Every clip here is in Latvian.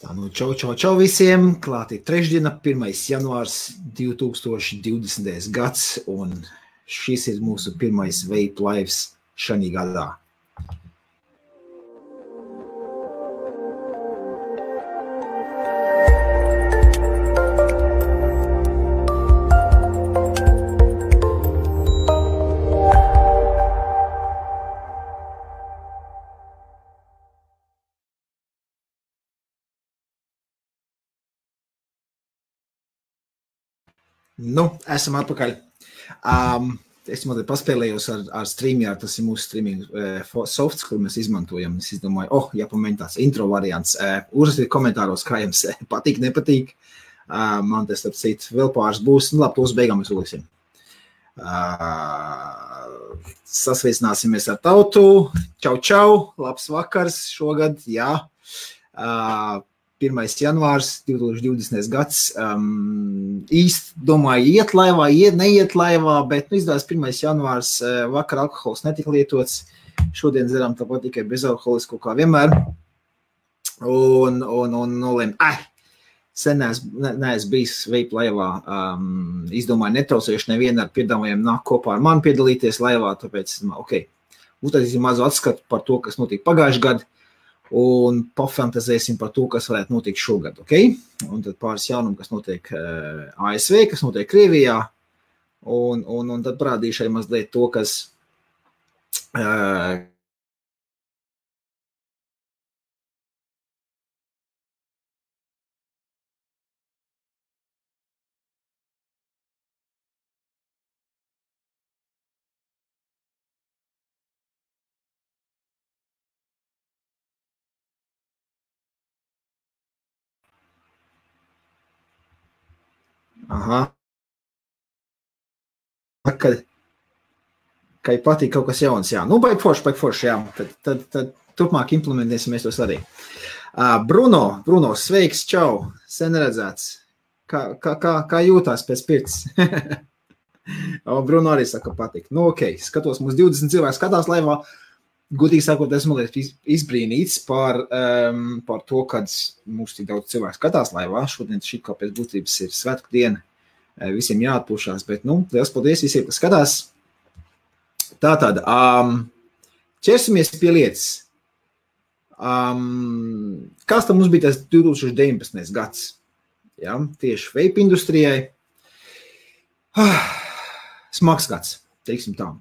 Tā nu, čau visiem. Klāt ir trešdiena, 1. janvārs 2020. gads, un šis ir mūsu pirmais Vape Lives šajā gadā. Nu, esam atpakaļ. Es mazliet paspēlējos ar StreamYard, tas ir mūsu streaming softs, kur mēs izmantojam. Es izdomāju, jāpamēģina tāds intro variants. Uzrakstiet komentāros, kā jums patīk, nepatīk. Man tas, starp citu, vēl pāris būs. Nu, labi, tos beigām mēs uzliksim. Sasveicināsimies ar tautu. Čau, labs vakars šogad, jā. 1. janvārs 2020. gads. Īsti domāju, iet laivā, neiet laivā, bet izdevās 1. janvārs, vakar alkohols netika lietots. Šodien dzeram tāpat tikai bezalkoholisko kā vienmēr. Un nolēm, sen neesmu bijis Vape laivā. Izdomāju, netraucējuši nevienu ar piedāvājumu nāk kopā ar mani piedalīties laivā, tāpēc, uztaisīsim mazu atskatu par to, kas notika pagājušajā gadā. Un pafantazēsim par to, kas varētu notikt šogad, ok? Un tad pāris jaunumu, kas notiek ASV, kas notiek Krievijā, un tad parādīšu arī mazliet to, kas Kai patīk kaut kas jauns, jā. Nu, baigi forši, jā. Tad turpmāk implementēsimies tos arī. Bruno, sveiks, čau, sen redzēts. Kā jūtās pēc pirts? Bruno arī saka, patīk. Nu, ok, skatos, mums 20 cilvēki skatās laivā. Gudīgi sakot, esmu izbrīnīts par to, kad mums tik daudz cilvēku skatās laivā. Šodien šī kā pēc būtības ir svētku diena. Visiem jāatpūšās, bet, liels paldies visiem, kas skatās. Tātad, ķersimies pie lietas. Kāds tam mums bija tas 2019. gads? Ja, tieši vape industrijai. Smags gads, teiksim tā.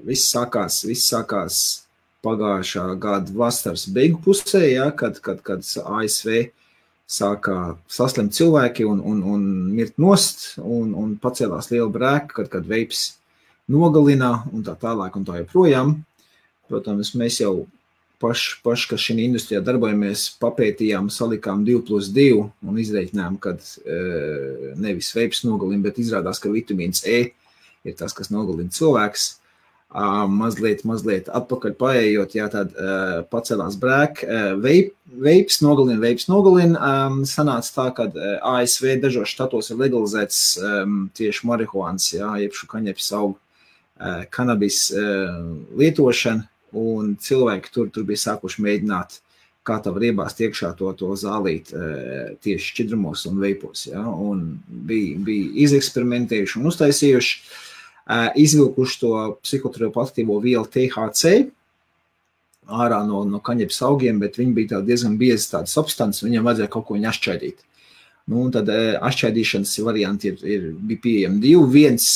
Viss sākās pagājušā gada vasaras beigu pusē, ja, kad ASV sākā saslimt cilvēki un mirt nost, un pacēlās liela brēka, kad vapes nogalina un tā tālāk un tā joprojām. Protams, mēs jau paši, kas šī industrijā darbojamies, papētījām, salikām 2+2 un izreikinājām, kad nevis vapes nogalina, bet izrādās, ka vitamīns E ir tas, kas nogalina cilvēks. Mazliet atpakaļ paējot, jā, tad pacēlās brēka. Vapes nogalina. Sanāca tā, kad ASV dažos štatos ir legalizēts tieši marihuāns, jā, jeb šukaņepes augu kanabis lietošana, un cilvēki tur bija sākuši mēģināt, kā tā var iebāzt iekšā to zālīt tieši šķidrumos un veipos, jā, un bija izeksperimentējuši un uztaisījuši. Izvilkuši to psihotropoaktīvo vielu THC ārā no kaņepes augiem, bet viņi bija diezgan biezi tāda substance, viņam vajadzēja kaut ko viņu atšķaidīt. Nu, un tad atšķaidīšanas varianti bija pieejami divi. Viens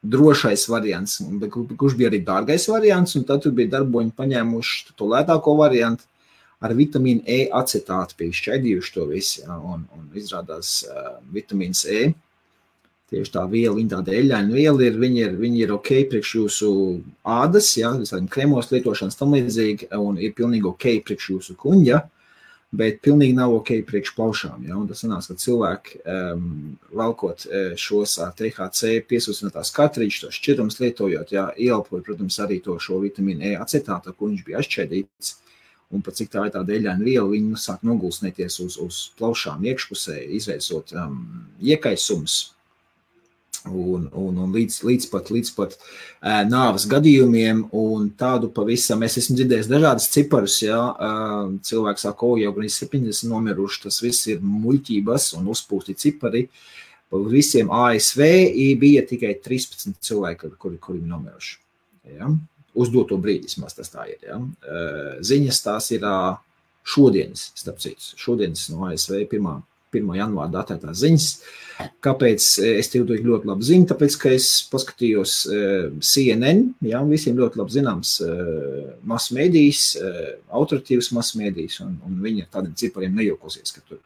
drošais variants, kurš bija arī dārgais variants, un tad tur bija darboņi paņēmuši to lētāko variantu ar vitamīnu E acetātu, bija šķaidījuši to visu, ja, un izrādās vitamīns E. Tieši tā viela, viņa tāda eļļaina viela viņi ir ok priekš jūsu ādas, ja, visādiem kremos lietošanas tam līdzīgi, un ir pilnīgi ok priekš jūsu kuņģa, bet pilnīgi nav ok priekš plaušām, ja, un tas sanās, ka cilvēki valkot šos ar THC piesūcinātās kartrīčus, tos šķidrums lietojot, ja, ieelpoja, protams, arī to šo vitamīnu E acetātu, ko viņš bija atšķaidīts, un pat cik tā ir tāda eļļaina viela, viņi sāk nogulsnēties uz plaušām iekšpusē, izraisot iekaisums. un līdz pat nāves gadījumiem, un tādu pavisam, es esmu dzirdējis dažādas ciparus, jā, cilvēki saka, jau gan 70 nomiruši, tas viss ir muļķības un uzpūsti cipari, visiem ASV bija tikai 13 cilvēki, kuri nomiruši, jā, uz doto brīdi, vismaz tas tā ir, jā, ziņas tās ir šodienas, starp citu, šodienas no ASV 1. janvāra datētās ziņas. Kāpēc es tev ļoti labi zinu? Tāpēc, ka es paskatījos CNN, jā, visiem ļoti labi zināms masmēdijas, autoritīvas masmēdijas, un viņi ar tādiem cipariem nejokosies, ka tur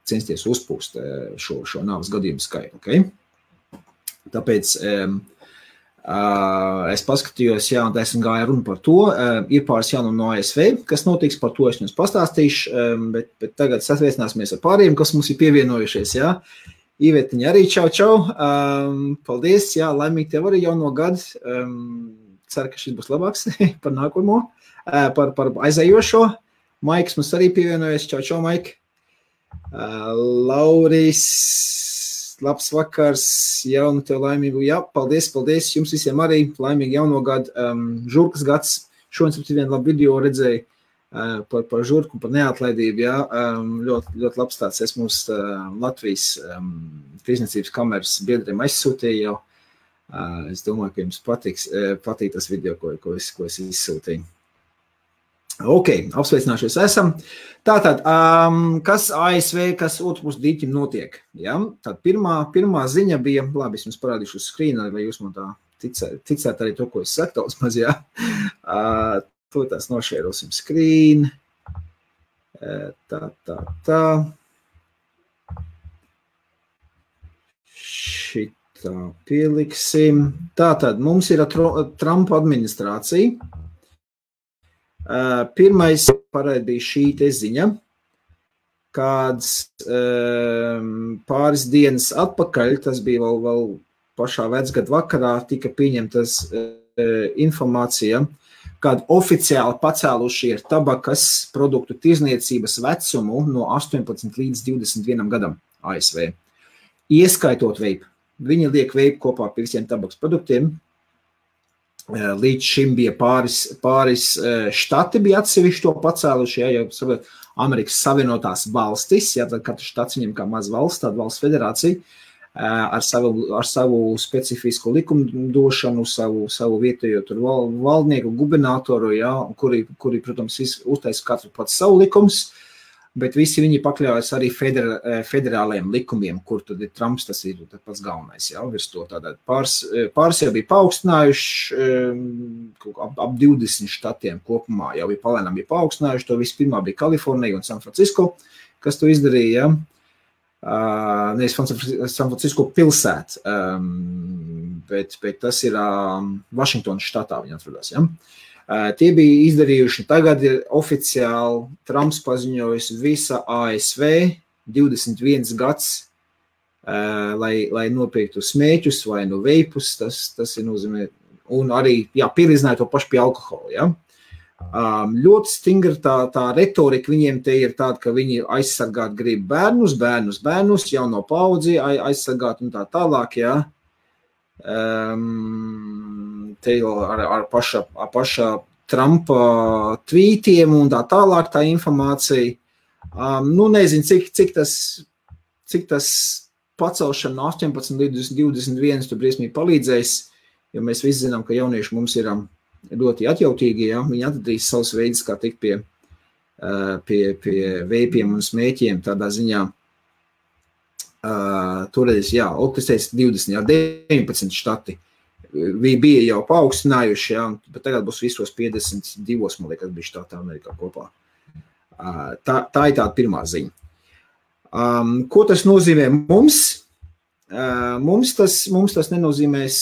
censties uzpūst šo nāves gadījumu skaitu. Okay? Tāpēc es paskatījos, jā, un esmu gāju runu par to. Ir pāris jaunu no ASV, kas notiks, par to es jums pastāstīšu, bet tagad sasveicināsimies ar pāriem, kas mums ir pievienojušies, jā. Ivetiņa arī čau. Paldies, jā, laimīgi tev arī jauno gadu. Ceru, ka šis būs labāks par nākamo, par aizējošo. Maiks mums arī pievienojas, čau, Maik. Lauris, labs vakars, jaunu tev laimīgu, jā, paldies, jums visiem arī laimīgi jauno gadu, žurkas gads, šodien vienu labu video redzēju par žurku, par neatlaidību, jā, ļoti labs tāds, es mums Latvijas tirsniecības kameras biedriem aizsūtīju jau, es domāju, ka jums patīk tas video, ko es izsūtīju. Ok, apsveicināšies esam. Tātad, kas ASV, kas otrpus dīķim notiek? Ja? Tad pirmā ziņa bija, labi, es jums parādīšu uz skrīna, vai jūs man tā ticēt arī to, ko es saku, daudz maz, jā. To tās nošērosim skrīnu. Tā. Šitā pieliksim. Tātad, mums ir Trumpa administrācija. Pirmais parādi bija šī te ziņa, kāds pāris dienas atpakaļ, tas bija vēl pašā vecgada vakarā, tika pieņemtas informācija, kad oficiāli pacēluši ir tabakas produktu tirzniecības vecumu no 18 līdz 21 gadam ASV. Ieskaitot veipu. Viņi liek veipu kopā pie visiem tabakas produktiem. Līdz šim bija pāris štati bija atsevišķi to pacēluši, ja jau Amerikas Savienotās valstis, ja tad katrs štats viņam kā maz valsts, tāda valsts federācija, ar savu specifisku likumdošanu, savu vietējo tur valdnieku, gubernatoru, ja, kuri, protams, uztaisa katru pats savu likums, bet visi viņi pakļaujas arī federālajiem likumiem, kur tad ir Trumps, tas ir pats galvenais, jā, virs to tādā. Pāris jau bija paaugstinājuši, ap 20 štatiem kopumā jau bija palēnām paaugstinājuši, to vispirmā bija Kalifornija un San Francisco, kas to izdarīja, nevis San Francisco pilsēta, bet tas ir Vašingtonas štatā viņi atrodās, jā. Tie bija izdarījuši, tagad ir oficiāli Trumps paziņojis visa ASV 21 gads, lai nopirktu smēķus vai no veipus, tas ir nozīmē, un arī, jā, pielīdzināja to pašu pie alkohola, jā. Ļoti stingra tā retorika viņiem te ir tāda, ka viņi aizsargāt grib bērnus, jauno paudzi aizsargāt un tā tālāk, jā. Te ar paša Trumpa tvītiem un tā tālāk tā informācija. Nezinu, cik tas pacelšana no 18 līdz 21 tu briesmīgi palīdzēs, jo mēs visi zinām, ka jaunieši mums ir ļoti atjautīgi, ja? Viņi atradīs savus veidus, kā tikt pie veipiem un smēķiem tādā ziņā. Toreiz, jā, es teicu 20, jā, 19 štati bija jau paaugstinājuši, jā, bet tagad būs visos 52, man liekas, bija štātā Amerikā kopā. Tā ir tāda pirmā ziņa. Ko tas nozīmē mums? Mums tas nenozīmēs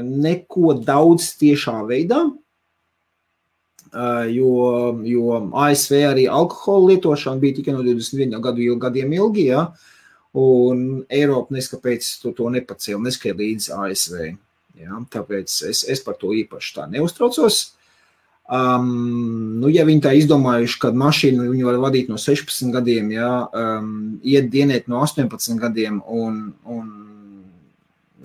neko daudz tiešā veidā, jo ASV arī alkohola lietošana bija tikai no 21 gadiem ilgi, jā. Un Eiropa neskapēc to nepacēla, neskai līdz ASV. Ja, tāpēc es par to īpaši tā neuztraucos. Ja viņi tā izdomājuši, kad mašīnu viņi var vadīt no 16 gadiem, ja, iet dienēt no 18 gadiem un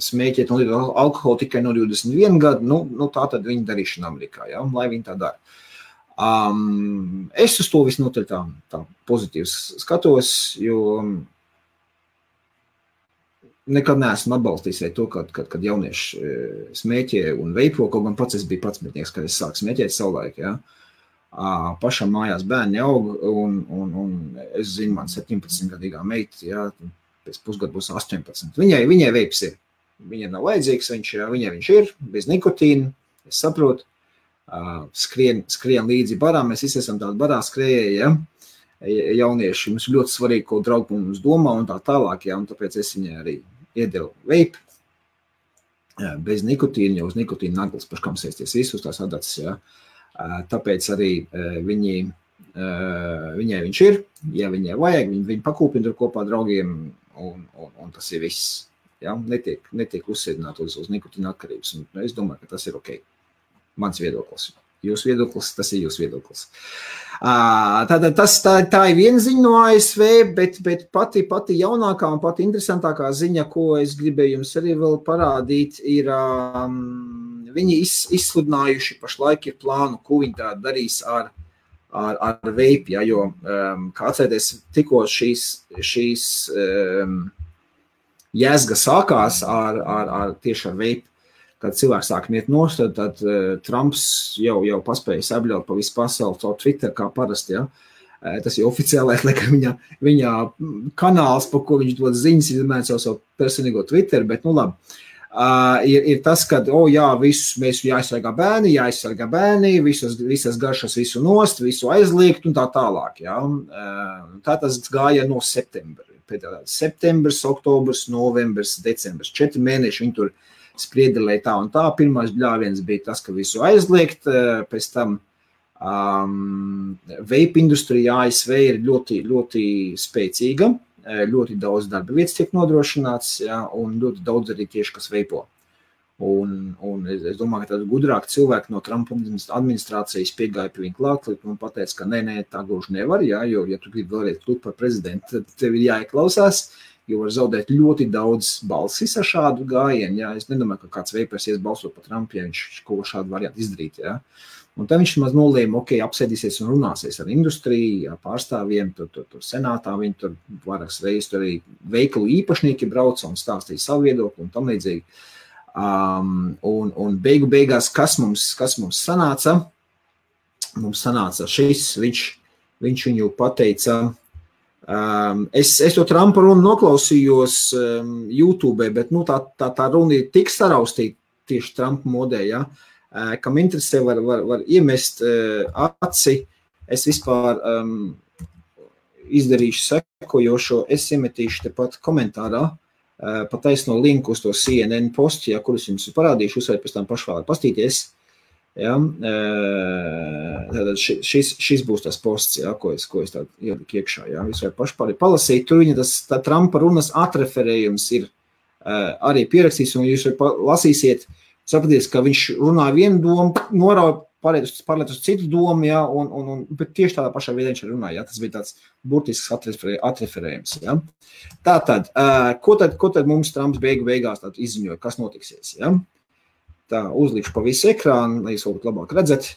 smēķēt un lietot alkoholu tikai no 21 gadu, nu tā tad viņa darīšana Amerikā, ja, lai viņi tā dara. Es uz to visnotaļ tā pozitīvs skatos, jo nekad neesmu atbalstījis to, kad jaunieši smēķē un veipo, kaut gan pats es biju 11, kad es sāku smēķēt savulaik, ja. Pašam mājās bērni aug, un es zinu, man 17-gadīgā meita, ja, pēc pusgadu būs 18. Viņai veips ir. Viņai nav vajadzīgs, viņai viņš ir, bez nikotīna, es saprotu. Skrien līdzi barā, mēs visi esam tādi barā skrējēji, ja? Jaunieši, mums ļoti svarīgi, ko draugi mums domā un tā tālāk, ja? Un tāpēc es viņai arī iedevu veipu, bez nikotīna, jo uz nikotīna naglas paškam sēsties visus tās adatas, ja? Tāpēc arī viņai viņš ir, ja viņai vajag, viņi pakūpina tur kopā draugiem un tas ir viss, ja? Netiek uzsēdināt uz nikotīna atkarības, un es domāju, ka tas ir ok. Mans viedoklis. Jūsu viedoklis, tas ir jūsu viedoklis. Tātad tā ir viena ziņa no ASV, bet pati jaunākā un pati interesantākā ziņa, ko es gribēju jums arī vēl parādīt, ir viņi izsludinājuši pašlaik ir plānu, ko viņi tā darīs ar veipi, ja, jo, kā atcerieties, tikko šīs jēzga sākās tieši ar veipi, kad cilvēks sāk miet nost, tad Trumps jau paspēja sabļaut pa visu pasauli caur Twitter, kā parasti, ja. Tas ir oficiālais, viņa kanāls, pa ko viņš dod ziņas, izmēr savu personīgo Twitter, bet nu labi. Ir tas, kad, mēs jāaizsargā bērni, visas garšas visu nost, visu aizliegt un tā tālāk, ja. Tā tas gāja no septembra. Septembrs, oktobrs, novembrs, decembrs, 4 mēneši viņi tur spriedelēja tā un tā. Pirmais bļāviens bija tas, ka visu aizliegt, pēc tam vape industrija ASV ir ļoti, ļoti spēcīga, ļoti daudz darba vietas tiek nodrošināts, ja, un ļoti daudz arī tieši, kas veipo. Un es domāju, ka tad gudrāk cilvēki no Trumpa administrācijas piegāja pie viņa klāt, un pateica, ka nē, tā gluži nevar, ja, jo, ja tu gribi vēlreiz kļūt par prezidentu, tad tev ir jāieklausās, jo var zaudēt ļoti daudz balsis ar šādu gājienu. Ja? Es nedomāju, ka kāds veipers ies balsot par Trumpu, ja viņš kaut ko šādu variantu izdarīt. Ja? Un tad viņš maz nolēma, apsēdīsies un runāsies ar industriju, ar pārstāvjiem, tur senātā, viņi tur vairākas reizes tur arī veikalu īpašnieki brauca un stāstīja savu viedokli un tam līdzīgi. Un beigās, kas mums sanāca? Mums sanāca šis, viņš viņu pateica. Es to Trumpa runu noklausījos YouTube, bet tā runa ir tik saraustīta tieši Trumpa modē, ja, kam interesē var iemest aci. Es vispār izdarīšu sekojošo, es iemetīšu tepat komentārā, pataisno linku uz to CNN postu, ja, kurus jums parādīšu, jūs varat pēc tam paši vēl pastīties. Ja, šis būs tas posts, ja, ko es tādu ieliku iekšā. Ja, jūs varat paši palasīt, tur viņa tā Trumpa runas atreferējums ir arī pierakstīs, un jūs lasīsiet, sapraties, ka viņš runā vienu domu, norauj pārliet uz citu domu, ja, bet tieši tādā pašā veidā viņš runāja. Ja, tas bija tāds burtisks atreferējums. Ja. Tātad, ko tad mums Trumps beigās izziņoja, kas notiksies? Ja? Tā, uzlikšu pa visu ekrānu, lai jūs varbūt labāk redzat.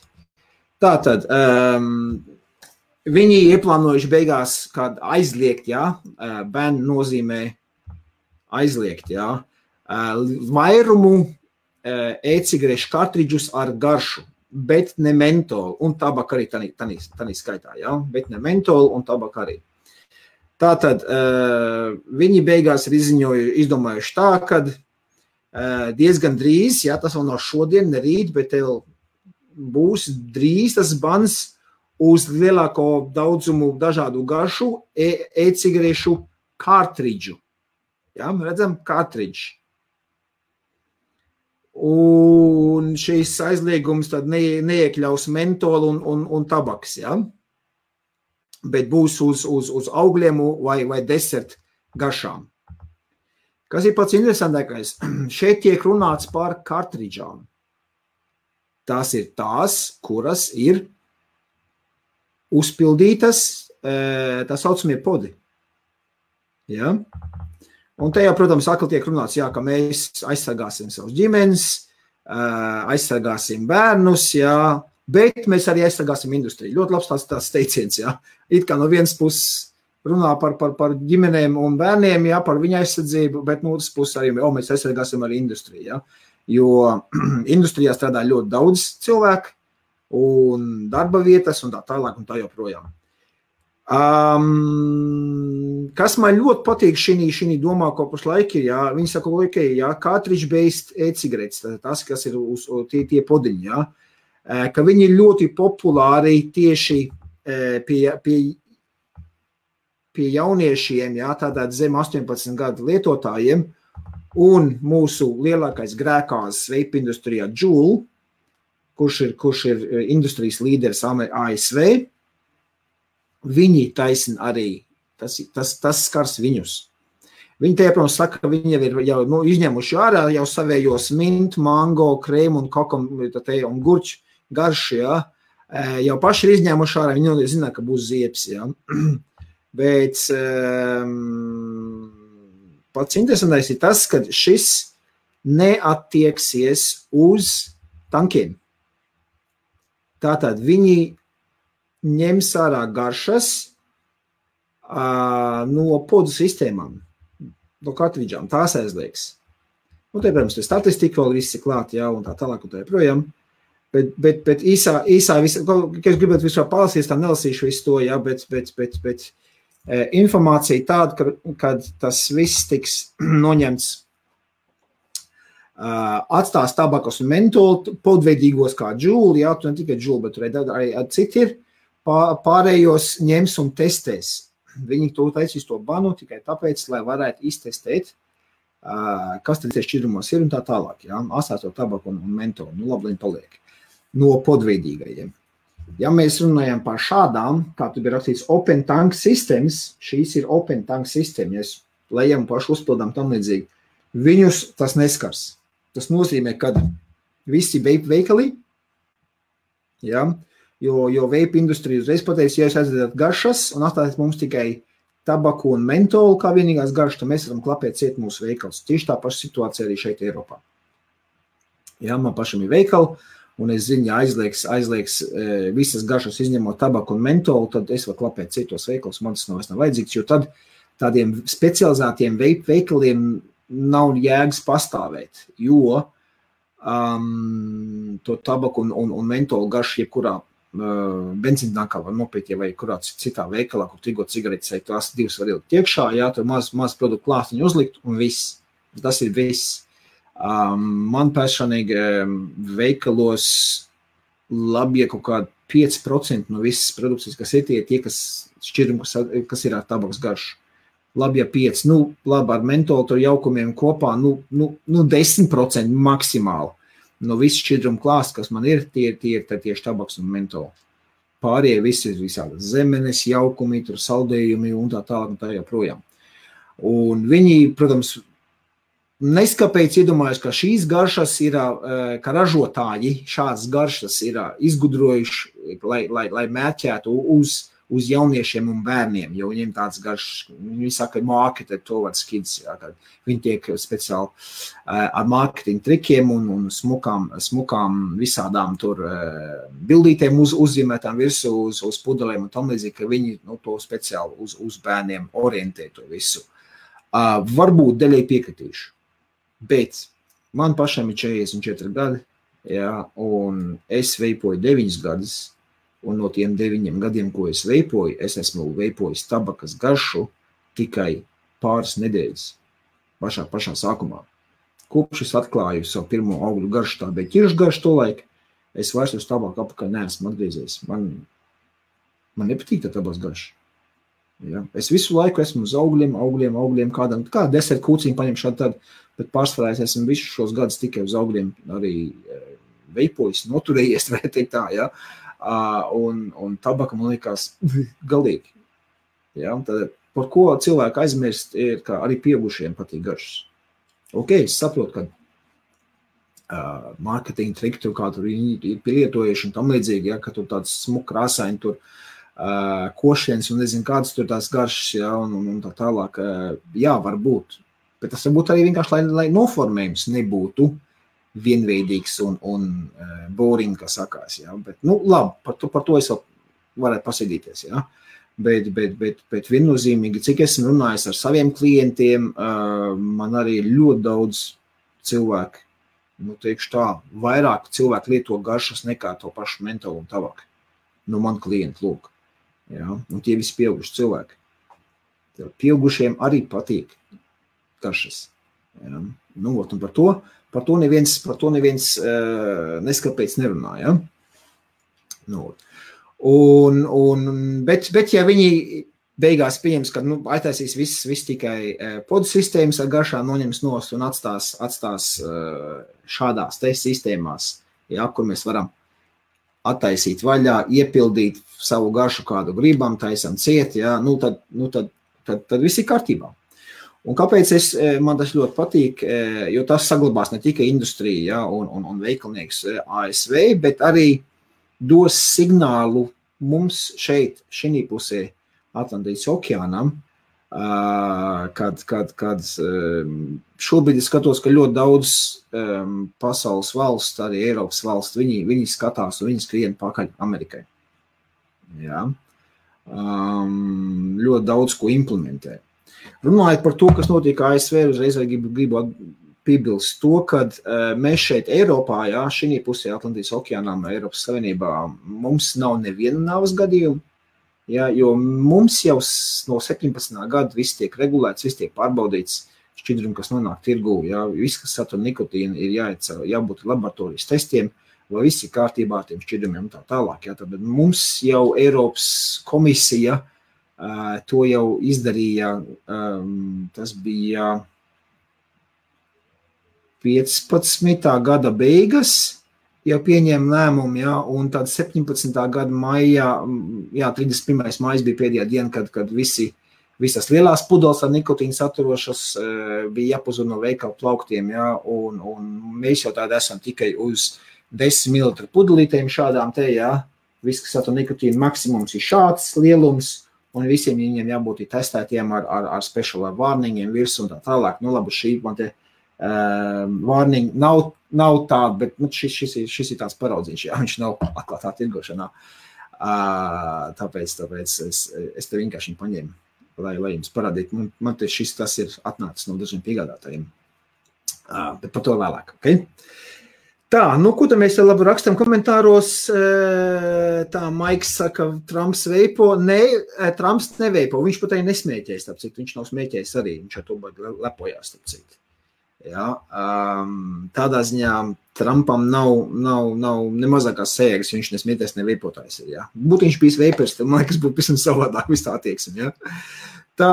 Tātad, viņi ieplānojuši beigās kādu aizliegt, ja, bērnu nozīmē aizliegt, ja, vairumu e-cigarešu kartridžus ar garšu, bet ne mentolu, un tabaka arī tanī skaitā, ja, bet ne mentolu un tabaka arī. Tātad, viņi beigās ir izdomājuši tā, kad diezgan drīz, ja, tas vēl nav šodien, ne rīt, bet tev būs drīz tas bans uz lielāko daudzumu dažādu garšu e-cigarešu kartridžu. Ja, redzam, kartridži. Un šīs aizliegums tad neiekļaus mentolu un tabaks, ja, bet būs uz augļiem vai desert garšām. Kas ir pats interesantākais? Šeit tiek runāts par kartridžām. Tās ir tās, kuras ir uzpildītas, tā saucamie podi. Ja? Un te jau, protams, atkal tiek runāts, jā, ka mēs aizsargāsim savus ģimenes, aizsargāsim bērnus, jā, bet mēs arī aizsargāsim industriju. Ļoti labs tās teiciens, jā. It kā no vienas puses runā par ģimenēm un bērniem, jā, par viņa aizsardzību, bet no otras puses arī mēs aizsargāsim arī industriju, jā. Jo industrijā strādā ļoti daudz cilvēku un darba vietas un tā tālāk un tā joprojām. Kas man ļoti patīk šī domā, ko pašlaik ir, jā, viņi saka, jā, cartridge-based e-cigaretes, tas, kas ir uz tie podiņi, jā, ka viņi ir ļoti populāri tieši pie jauniešiem, jā, tātad zem 18 gadu lietotājiem, un mūsu lielākais grēkās vape industrijā Juul, kurš ir industrijas līderis ASV, viņi taisina arī, tas skars viņus. Viņi te, protams, saka, ka viņi jau ir izņemuši ārā jau savējos mint, mango, krēmu un kokam un gurču garšu, jā. Jau paši ir izņēmuši ārā, viņi zina, ka būs ziepes, jā. Bet pats interesantais ir tas, ka šis neattieksies uz tankiem. Tātad viņi ņems ārā garšas no podu sistēmām, no kartridžām, tās aizliegs. Nu, te, protams, te statistika vēl viss ir klāt, jā, un tā tālāk un tā projām. Bet īsā visu, ka es gribētu vispār palasīt, tā nelasīšu visu to, jā, bet informācija tāda, kad tas viss tiks noņemts, atstās tabakas un mentolu podveidīgos kā Juul, jā, tu ne tikai Juul, bet arī citi ir, pārējos ņems un testēs. Viņi to taisīs to banu tikai tāpēc, lai varētu iztestēt, kas tad šķidrumos ir un tā tālāk, jā, asāto tabaku un mentolu, nu labi, viņi paliek, no podveidīgajiem. Ja mēs runājam par šādām, kā tu bija rakstīts Open Tank Systems, šīs ir Open Tank System, ja lejam pašu uzpildām tam līdzīgi, viņus tas neskars. Tas nozīmē, ka visi vape veikali, jā, jo vape industrija uzreiz pateiks, ja jūs aizvedat garšas un atstājat mums tikai tabaku un mentolu kā vienīgās garšas, tad mēs varam klapēt ciet mūsu veikals. Tieši tā paša situācija arī šeit Eiropā. Jā, man pašam ir veikali, un es zinu, ja aizliegs visas garšas izņemot tabaku un mentolu, tad es varu klapēt citos veikals, man tas nav vajadzīgs, jo tad tādiem specializētiem vape veikaliem nav jēgas pastāvēt, jo to tabaku un mentolu garšu jebkurā benzīntākā var nopirkt, vai kurā citā veikalā, kur tirgot cigaretes, tās divas var ielikt iekšā, jā, tur maz produktu klāstiņu uzlikt un viss. Tas ir viss. Man personīgi veikalos labi, ja kaut kādi 5% no visas produkcijas, kas ir tie, kas šķirumi, kas ir ar tabakas garšu. Labi, ja 5, labi, ar mentolu tur jaukumiem kopā, 10% maksimāli. No visu šķidrumu klāstu, kas man ir, tie ir tieši tabaks un mentoli. Pārējie visi ir visādas zemenes, jaukumi, tur saldējumi un tā tālāk un tā joprojām. Un viņi, protams, neskapēc iedomājas, ka šīs garšas ir, ka ražotāji šādas garšas ir izgudrojuši, lai mērķētu uz jauniešiem un bērniem, jo viņiem tāds garšas, viņi saka, marketed towards kids, jā, kad viņi tiek speciāli ar marketing trikiem un smukām visādām tur bildītēm uzzīmētām virsū uz pudelēm un tam līdzīgi, ka viņi to speciāli uz bērniem orientē to visu. Varbūt daļai piekritīšu, bet man pašam ir 44 gadi, jā, un es veipoju 9 gadus, un no tiem 9 gadiem, ko es veipoju, es esmu veipojis tabakas garšu tikai pāris nedēļas pašā sākumā. Kopš es atklāju savu pirmo augļu garšu, tā bija ķiršu garšu tolaik, es vairs uz tabaku apakaļ neesmu atgriezies. Man nepatīk tā tabakas garša. Ja? Es visu laiku esmu uz augļiem, kā deserta kūciņu paņem šādi tad, bet pārsvarā es esmu visus šos gadus tikai uz augļiem arī veipojis, noturējies, vai teikt tā, ja? Un tabaka man liekas galīgi. Ja? Tad, par ko cilvēku aizmirst, ir, ka arī pieaugušiem patīk garšas. Ok, es saprotu, ka marketing triki tur kā tur ir pielietojuši un tam līdzīgi, ja? Ka tur tāds smuk krāsaini tur košienes un nezinu kādas tur tās garšas, ja? un tā tālāk. Jā, varbūt. Bet tas varbūt arī vienkārši, lai noformējums nebūtu vienveidīgs un boring, kā sakās. Ja? Bet, labi, par to es vēl varētu pasīdīties. Ja? Bet viennozīmīgi, cik esmu runājis ar saviem klientiem, man arī ļoti daudz cilvēku, teikšu tā, vairāk cilvēku lieto garšas nekā to pašu mentolu un tabaku. Man klienti, lūk. Ja? Un tie visi pieauguši cilvēki. Pieaugušiem arī patīk garšas. Ja? Un par to neviens neskapēc nerunā. Ja? Bet ja viņi beigās pieņems, ka aiztaisīs viss tikai podu sistēmas ar garšām noņems nost un atstās šādās te sistēmās, ja, kur mēs varam attaisīt vaļā, iepildīt savu garšu, kādu gribam, taisam ciet, ja, tad viss ir kārtībā. Un kāpēc man tas ļoti patīk, jo tas saglabās ne tikai industriju, ja, un veikalnieks ASV, bet arī dos signālu mums šeit, šī pusē Atlantijas okeānam, kad šobrīd es skatos, ka ļoti daudz pasaules valsts, arī Eiropas valsts, viņi skatās un viņi skrien pakaļ Amerikai. Ja. Ļoti daudz ko implementē. Runājot par to, kas notiek ASV, uzreiz gribu piebilst to, kad mēs šeit Eiropā, jā, šī pusē Atlantijas okeānām, Eiropas Savienībā, mums nav neviena nāves gadījuma, jā, jo mums jau no 17. gada viss tiek regulēts, viss tiek pārbaudīts, šķidrumi, kas nonāk tirgū, jā, viss, kas satur nikotīnu, ir jābūt laboratorijas testiem, vai viss ir kārtībā ar tiem šķidrumiem un tā tālāk. Jā, tad mums jau Eiropas komisija to jau izdarīja, tas bija 15. gada beigas, jau pieņēma lēmumu, jā, un tad 17. gada maijā, jā, 31. maijas bija pēdējā diena, kad visas lielās pudeles ar nikotīnu saturošas bija jāpazud no veikalu plauktiem, jā, un mēs jau tādi esam tikai uz 10 ml pudelītēm šādām te, jā, viss, kas satur nikotīnu maksimums ir šāds lielums, un visiem viņiem jābūt testētiem ar special warningiem virs un tā tālāk. Labi, šī man te warning nav tāda, bet šis ir tāds paraudzīns, jā, viņš nav atklātā tirgošanā. Tāpēc es te vienkārši paņēmu, lai jums parādītu. Man te tas ir atnācis no dažiem piegādātājiem. Bet par to vēlāk, ok? Tā, ko tad mēs labi rakstam komentāros? Tā, Maiks saka, Trumps veipo. Nē, Trumps neveipo. Viņš pat arī nesmēķēs, tāpēc viņš nav smēķējis arī. Viņš ar to lepojās, tāpēc. Ja, tādā ziņā Trumpam nav nemazākās sēgas, viņš nesmēķēs neveipotājs. Ja. Būtu viņš bijis veipers, tad man liekas būtu pavisam savādāk viss tā attieksme. Ja. Tā,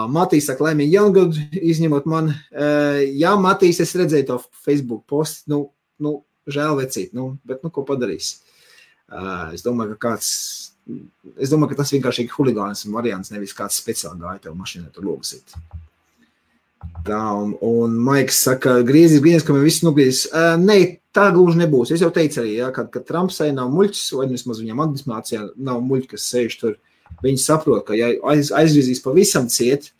Matīs saka, laimīgi jaungadu, izņemot man. Jā, Matīs, es redzēju to Facebook postu, žēl vecīt, bet ko padarīs? Es domāju, ka tas vienkārši ir huligāns variants, nevis kāds speciāli gāja tev mašīnā tur logasīt. Tā, un Maiks saka, griezies, ka mēs visi nogriezīs. Nē, tā gluži nebūs. Es jau teicu arī, ja, ka Trumpsai nav muļķis, vai vismaz viņam administrācijā nav muļķi, kas sēž tur. Viņi saprot, ka ja aizgriezīs pavisam ciet,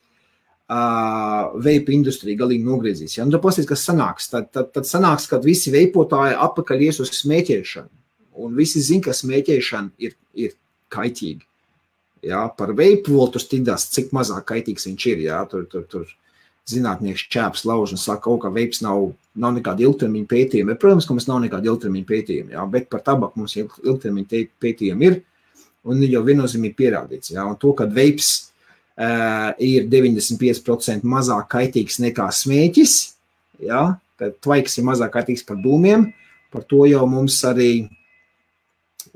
veipa industrija galīgi nogriezīs. Ja? Un tad pasties, kas sanāks. Tad sanāks, kad visi veipotāji atpakaļ ies uz smēķēšanu. Un visi zin, ka smēķēšana ir kaitīgi. Ja? Par veipu vēl tur stīdās, cik mazāk kaitīgs viņš ir. Ja? Tur zinātnieks čēps lauž un saka, ka veips nav nekāda ilgtermiņa pētījuma. Protams, ka mums nav nekāda ilgtermiņa pētījuma. Ja? Bet par tabaku mums ilgtermiņa pētījumi ir. Un jau viennozīmīgi pierādīts. Ja? Un to, kad veips ir 95% mazāk kaitīgs nekā smēķis, ja, kad tvaiks ir mazāk kaitīgs par dūmiem, par to jau mums arī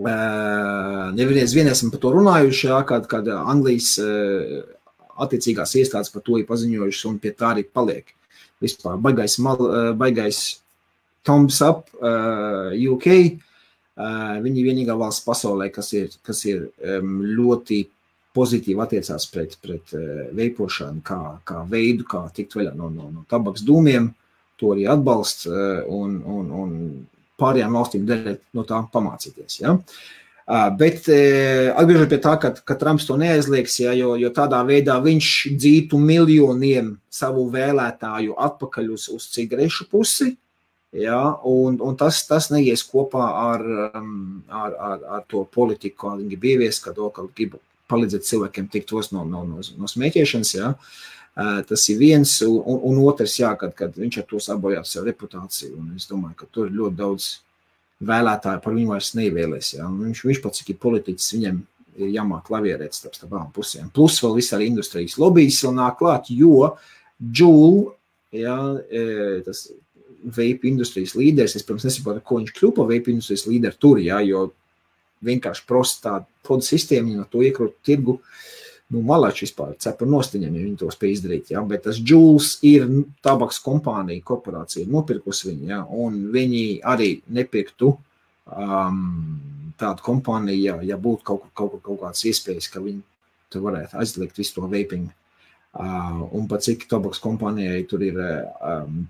vien esam par to runājuši, ja, kad Anglijas attiecīgās iestādes par to ir paziņojušas un pie tā arī paliek. Vispār baigais thumbs up UK, viņi vienīgā valsts pasaulē, kas ir ļoti pozitīvi attiecās pret veipošanu kā veidu, kā tikt vaļā no tabaks dūmiem, to arī atbalsts un pārējām valstīm derēt no tā pamācīties. Ja? Bet atgriežot pie tā, ka Trumps to neaizliegs, ja, jo tādā veidā viņš dzītu miljoniem savu vēlētāju atpakaļ uz cigarešu pusi, ja, un tas neies kopā ar to politiku, kā viņi grib ieviest, ka grib palīdzēt cilvēkiem tikt no smēķēšanas, ja. Tas ir viens, un otrs, jā, kad viņš ar to sabojāt savu reputāciju, un es domāju, ka tur ir ļoti daudz vēlētāji par viņu vairs nevēlēs, jā, un viņš pats, cik ir politiķis, viņam ir jāmāk klavierēt starp abām pusēm, plus vēl viss arī industrijas lobbyis vēl nāk klāt, jo Juul, jā, tas vape industrijas līderis, es, protams, nesaprotu, ko viņš kļūpa vape industrijas līderi tur, jā, jo vienkārši prosta tāda podu sistēma, no to iekrūt tirgu, malāči vispār cepar nostiņiem, ja viņi to spēj izdarīt, ja? Bet tas Juuls ir tabaks kompānija, korporācija, nopirkus viņu, ja? Un viņi arī nepirktu tādu kompāniju, ja būtu kaut kāds iespējas, ka viņi tur varētu aizliegt visu to vaping. Un pat cik tabaks kompānijai tur ir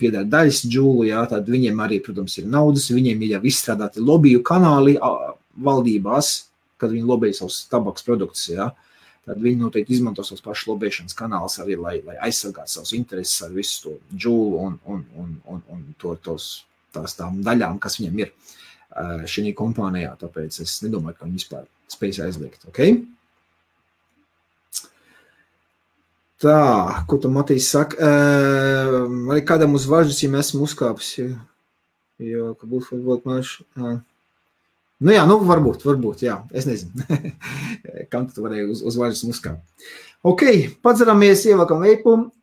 piedār daļas Juulu, ja? Tad viņiem arī, protams, ir naudas, viņiem ir jau izstrādāti lobiju kanāli valdībās, kad viņi lobēja savus tabaks produktus, ja? Tad viņi noteikti izmanto savus pašu lobēšanas kanālus arī, lai aizsargātu savus intereses ar visu to Juulu un tām daļām, kas viņam ir šī kompānijā. Tāpēc es nedomāju, ka viņi vispār spējas aizliegt. Okay? Tā, ko tu, Matīs, saka? Arī kādam uz važas, ja mēs esam uzkāpis, jo ka būtu varbūt maši... Nu jā, varbūt, jā, es nezinu, kam tu varēji uz vaļas uzkāpt. Ok, padzeramies, ievākam veipu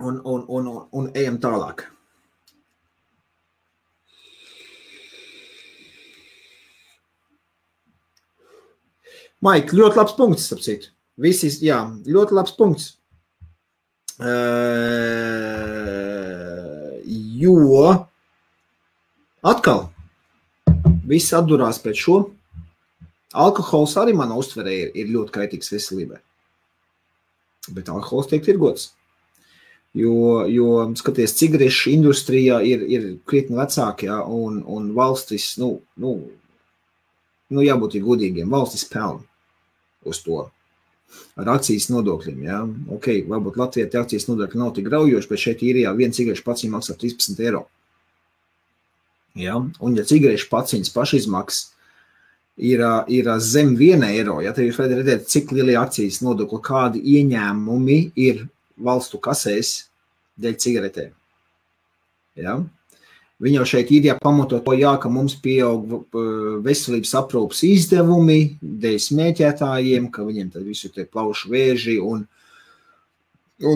un ejam tālāk. Maik, ļoti labs punkts, starp citu. Visi, jā, ļoti labs punkts. Jo... Atkal, viss atdurās pēc šo. Alkohols arī mana uztverē ir ļoti kaitīgs veselībai. Bet alkohols tiek tirgots. Jo skaties, cigarešu industrijā ir krietni vecāki, ja, un valstis, jābūt ir godīgiem, valstis pelna uz to. Ar akcijas nodokļiem, ja. Ok, varbūt Latvijā tie akcijas nodokļi nav tik graujoši, bet šeit īrijā viena cigarešu paciņa maksā 13 €. Ja? Un ja cigarešu paciņas pašizmaksas ir zem 1 €, ja tad jūs varat redzēt, cik lielie akcijas nodokļi, kādi ieņēmumi ir valstu kasēs dēļ cigaretēm. Ja? Viņi jau šeit ir pamatot to, ka mums pieaug veselības aprūpas izdevumi dēļ smēķētājiem, ka viņiem tad visu tie plaušu vēži un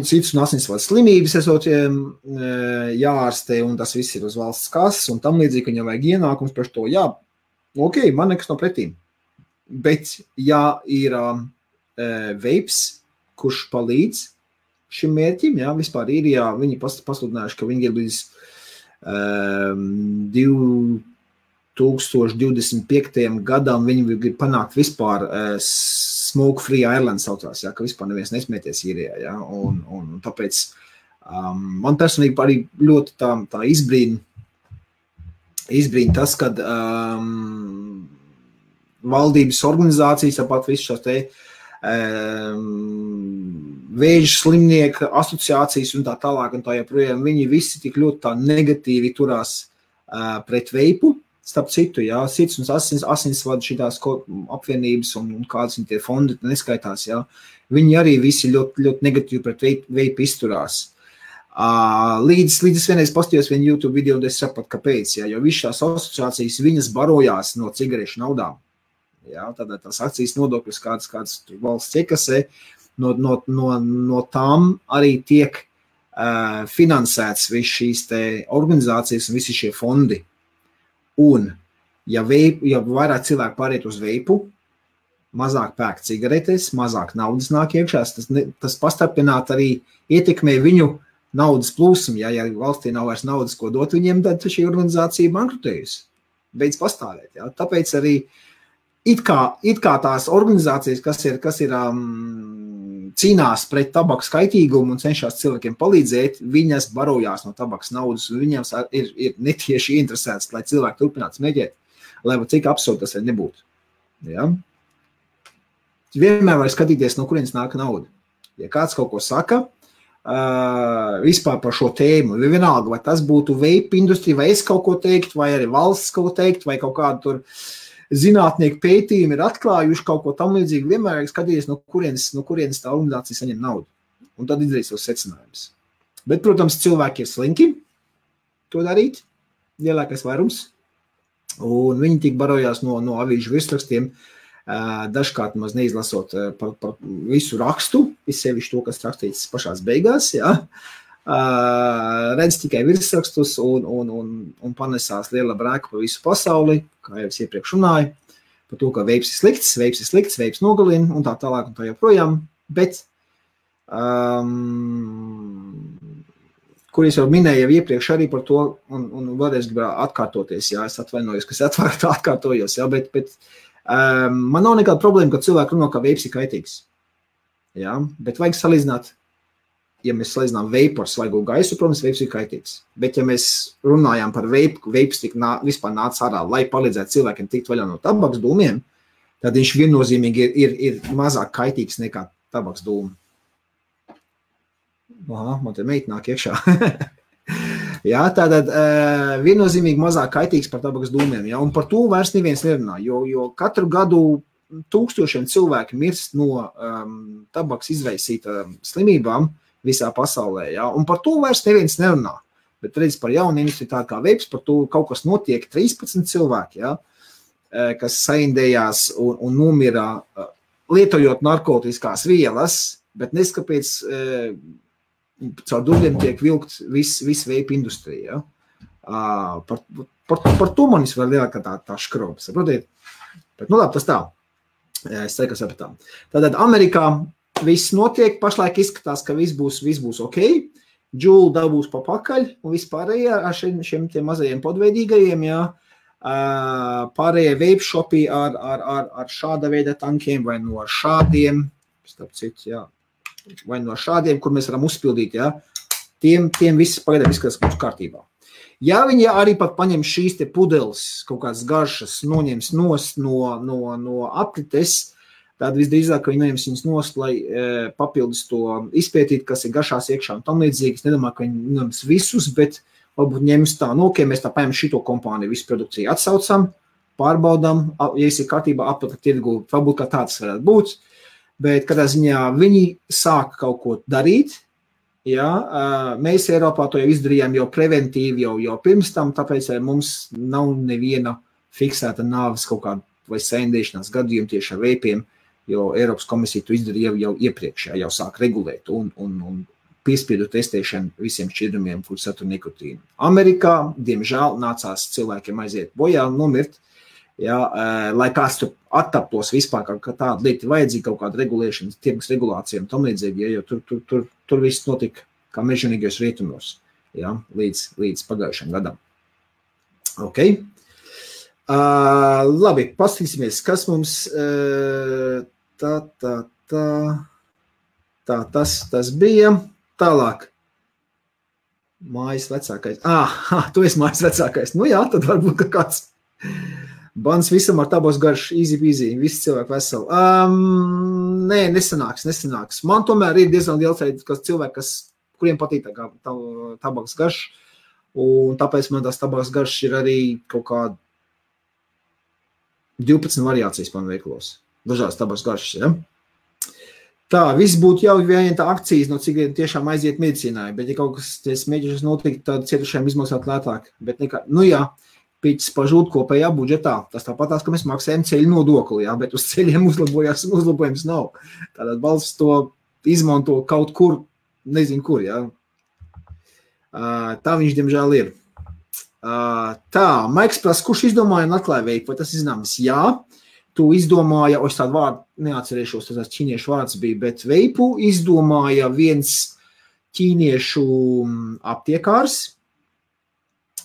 cits un asinsvadu slimības esot jāārstē, un tas viss ir uz valsts kases, un tam līdzīgi, ka viņam vajag ienākums par to, jā, ok, man nekas no pretīm. Bet, ja ir veips, kurš palīdz šim mērķim, jā, vispār ir, jā, viņi pasludinājuši, ka viņi ir līdz 2025. Gadam, viņi grib panākt vispār Smoke Free Ireland saucās, ja, ka vispār neviens nesmēties īrijā, ja, un tāpēc man personīgi arī ļoti tā izbrīna tas, kad valdības organizācijas, tāpat visu šās te vēža slimnieku asociācijas un tā tālāk un tā joprojām, viņi visi tik ļoti tā negatīvi turās pret veipu. Starp citu, jā, sirds un asinsvadu šitās apvienības un kādas viņi tie fondi neskaitās, jā, viņi arī visi ļoti, ļoti negatīvi pret veipu izturās. Līdz es vienreiz pastījos vienu YouTube video, un es sapratu, kāpēc, jā, jo viss šās asociācijas, viņas barojās no cigarešu naudām. Jā, tātad tās akcijas nodokļus kādas valsts iekasē, no tām arī tiek finansēts viss šīs te organizācijas un visi šie fondi. Un, ja vairāk cilvēku pāriet uz veipu, mazāk pērk cigaretes, mazāk naudas nāk iekšā, tas pastarpināt arī ietekmē viņu naudas plūsmu. Ja valstī nav vairs naudas, ko dot viņiem, tad šī organizācija bankrutējusi. Beidz pastāvēt. Ja? Tāpēc arī it kā tās organizācijas, kas ir cīnās pret tabakas kaitīgumu un cenšas cilvēkiem palīdzēt, viņas barojās no tabakas naudas, un viņiem ir netieši interesēts, lai cilvēki turpinātu smēķēt. lai cik absurdi tas arī nebūtu. Ja? Vienmēr var skatīties, no kurienes nāk nauda. Ja kāds kaut ko saka, vispār par šo tēmu, vienalga, vai tas būtu vape industrija, vai es kaut ko teikt, vai arī valsts kaut ko teikt, vai kaut kādu tur zinātnieku pētījumi ir atklājuši kaut ko tam līdzīgi, vienmēr ir skatīties, no kurienes tā organizācija saņem naudu. Un tad izdarīt savus secinājumus. Bet, protams, cilvēki ir slinki to darīt, lielākais vairums, un viņi tik barojās no avīžu virsrakstiem, dažkārt maz neizlasot par visu rakstu, izsevišķi to, kas rakstīts pašās beigās, ja? Redz tikai virsrakstus un panesās liela brēka pa visu pasauli, kā jau es iepriekš runāju, par to, ka veips ir slikts, veips nogalina un tā tālāk un tā joprojām, bet kur es jau minēju iepriekš arī par to, un vēlreiz gribētu atkārtoties, jā, es atvainojos, ka es atkārtojos, jā, bet man nav nekāda problēma, ka cilvēki runā, ka veips ir kaitīgs, jā, bet vajag salīdzināt, ja mēs salīdzinām veipu ar svaigo gaisu, protams, veips ir kaitīgs, bet ja mēs runājām par veips vispār nāca ārā, lai palīdzētu cilvēkiem tikt vaļā no tabaks dūmiem, tad viņš viennozīmīgi ir mazāk kaitīgs nekā tabaks dūmi. Aha, man te meita nāk iekšā. Jā, tātad viennozīmīgi mazāk kaitīgs par tabakas dūmiem. Ja? Un par to vairs neviens nerunā, jo katru gadu tūkstošiem cilvēki mirst no tabakas izraisīta slimībām visā pasaulē. Ja? Un par to vairs neviens nerunā. Bet redz par jaunu industriju tā kā veips, par to kaut kas notiek 13 cilvēki, ja? Kas saindējās un nomira lietojot narkotiskās vielas, bet neskapēc caur dubļiem tiek vilkt viss veipa industrija. Ja? Par to man vēl lielākā tā škroba, saprotiet? Bet, nu labi, tas tā. Es ceru, ka sapratām. Tātad Amerikā viss notiek, pašlaik izskatās, ka viss būs ok. Džūla dabūs pa pakaļ un vispārējā ar šiem tiem mazajiem podveidīgajiem, ja? Pārējie vape shopi ar šāda veida tankiem vai no šādiem, starp citu, jā. Vai no šādiem, kur mēs varam uzpildīt, ja, tiem viss pagaidām izskatās mums kārtībā. Ja viņi arī pat paņem šīs te pudeles, kaut kādas garšas, noņems nost no aprites, tad visdrīzāk, ka viņi noņems viņas nost, lai papildus to izpētīt, kas ir garšās iekšā un tam līdzīgi. Es nedomāju, ka viņi noņems visus, bet varbūt ņems tā, nu, ok, mēs tā paņem šito kompāniju, visu produkciju atsaucam, pārbaudam, ja es ir kārtībā aptaka tirgu, varbūt kā tāds varētu būt. Bet kādā ziņā viņi sāk kaut ko darīt, ja? Mēs Eiropā to jau izdarījām jau preventīvi, jau pirms tam, tāpēc mums nav neviena fiksēta nāves kaut kāda vai saindēšanās gadījuma tieši ar veipiem, jo Eiropas komisija to izdarīja jau iepriekš, jau sāk regulēt un piespiedu testēšanu visiem šķidrumiem, kur satur nikotīnu. Amerikā, diemžēl, nācās cilvēkiem aiziet bojā un nomirt, ja, lai kāds tur attaptos vispār, ka tāda lieta ir vajadzīga, kaut kāda regulēšana, tirgus regulācija un tam līdzīgi, ja, jo tur viss notika kā mežonīgajos rietumos, ja, līdz pagājušajam gadam. Ok. Labi, paskatīsimies, kas mums tas bija. Tālāk. Mājas vecākais. Tu esi mājas vecākais. Nu jā, tad varbūt ka kāds. Bans visam ar tabos garš, easy, visi cilvēki veseli. Nē, nesanāks. Man tomēr ir diezgan liels cilvēki, kuriem patīk tabaks garš, un tāpēc man tās tabaks garš ir arī kaut kā 12 variācijas man veiklos. Dažādas tabaks garšas, ja? Tā, viss būtu jau viena tā akcijas, no cik tiešām aiziet medicīnai, bet ja kaut kas mēģināšanas notikt, tad cietušajiem izmaksāt lētāk. Bet nekā, nu jā, pīķis pažūt kopējā budžetā. Tas tāpatās, ka mēs maksājam ceļu nodokli, jā, bet uz ceļiem uzlabojums nav. Tātad valsts to izmanto kaut kur, nezinu kur, jā. Tā viņš, diemžēl, ir. Tā, Maiks prasa, kurš izdomāja un atklāja veipu, vai tas zināms? Jā, tu izdomāja, es tādu vārdu neatcerēšos, tas ķīniešu vārds bija, bet veipu izdomāja viens ķīniešu aptiekārs.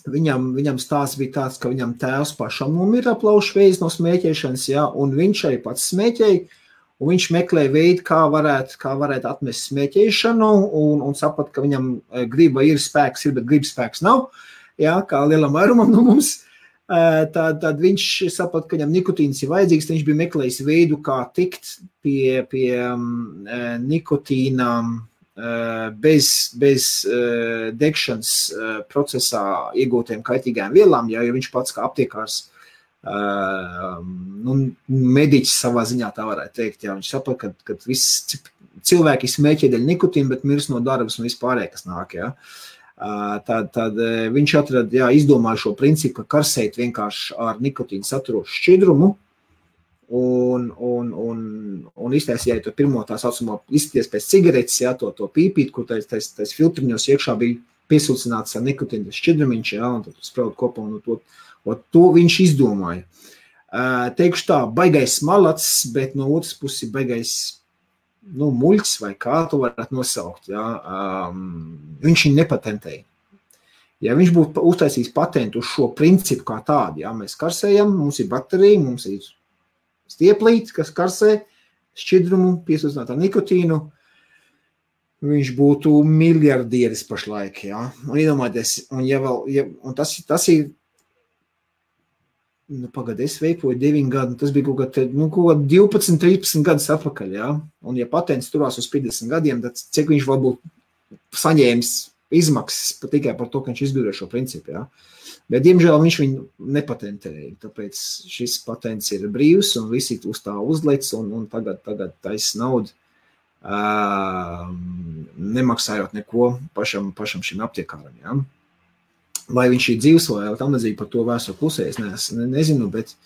Viņam stāsts bija tāds, ka viņam tēvs pašam nomira plaušu vēzis no smēķēšanas, ja, un viņš arī pats smēķēja, un viņš meklēja veidu, kā varētu atmest smēķēšanu, un saprat, ka viņam griba ir spēks, bet gribas spēks nav, ja, kā lielam vairumam no mums. tad viņš saprata, ka viņam nikotīns ir vajadzīgs, viņš bija meklējis veidu, kā tikt pie nikotīna bez degšanas procesā iegūtiem kaitīgām vielām, jo viņš pats kā aptiekārs mediķis savā ziņā tā varētu teikt, jā, viņš saprata, ka viss cilvēki smēķē dēļ nikotīna, bet mirs no darbas un vispārēj, kas nāk, jā. Tad viņš atrada, izdomāja šo principu, ka karsēt vienkārši ar nikotīnu saturošu šķidrumu un iztaisīja to pirmo tā saucamo izskaties pēc cigaretes, to pīpīt, kur tais filtriņos iekšā bija piesūcināts ar nikotīnu šķidrumiņš, un tad spraud kopā un to viņš izdomāja. Teikšu tā, baigais malacis, bet no otras puses baigais muļķis vai kā tu varētu nosaukt, viņš viņu nepatentēja. Ja viņš būtu uztaisījis patentu uz šo principu kā tādu, mēs karsējam, mums ir baterija, mums ir stieplīti, kas karsē šķidrumu, piesūcināt ar nikotīnu, viņš būtu miljardieris pašlaik, un iedomājieties, un tas ir, pagad, es veipoju 9 gadu, tas bija kaut 12, 13 gadus atpakaļ, un ja patents turās uz 50 gadiem, tad cik viņš varbūt saņēmis izmaksas tikai par to, ka viņš izgudroja šo principu, bet, diemžēl, viņš viņu nepatentēja, tāpēc šis patents ir brīvs, un visi uz tā uzlec, un tagad taisa naudu, nemaksājot neko pašam šim aptiekāram, Vai viņš ir dzīvs vai tam līdzīgi par to vēsturi klusē, es nezinu, bet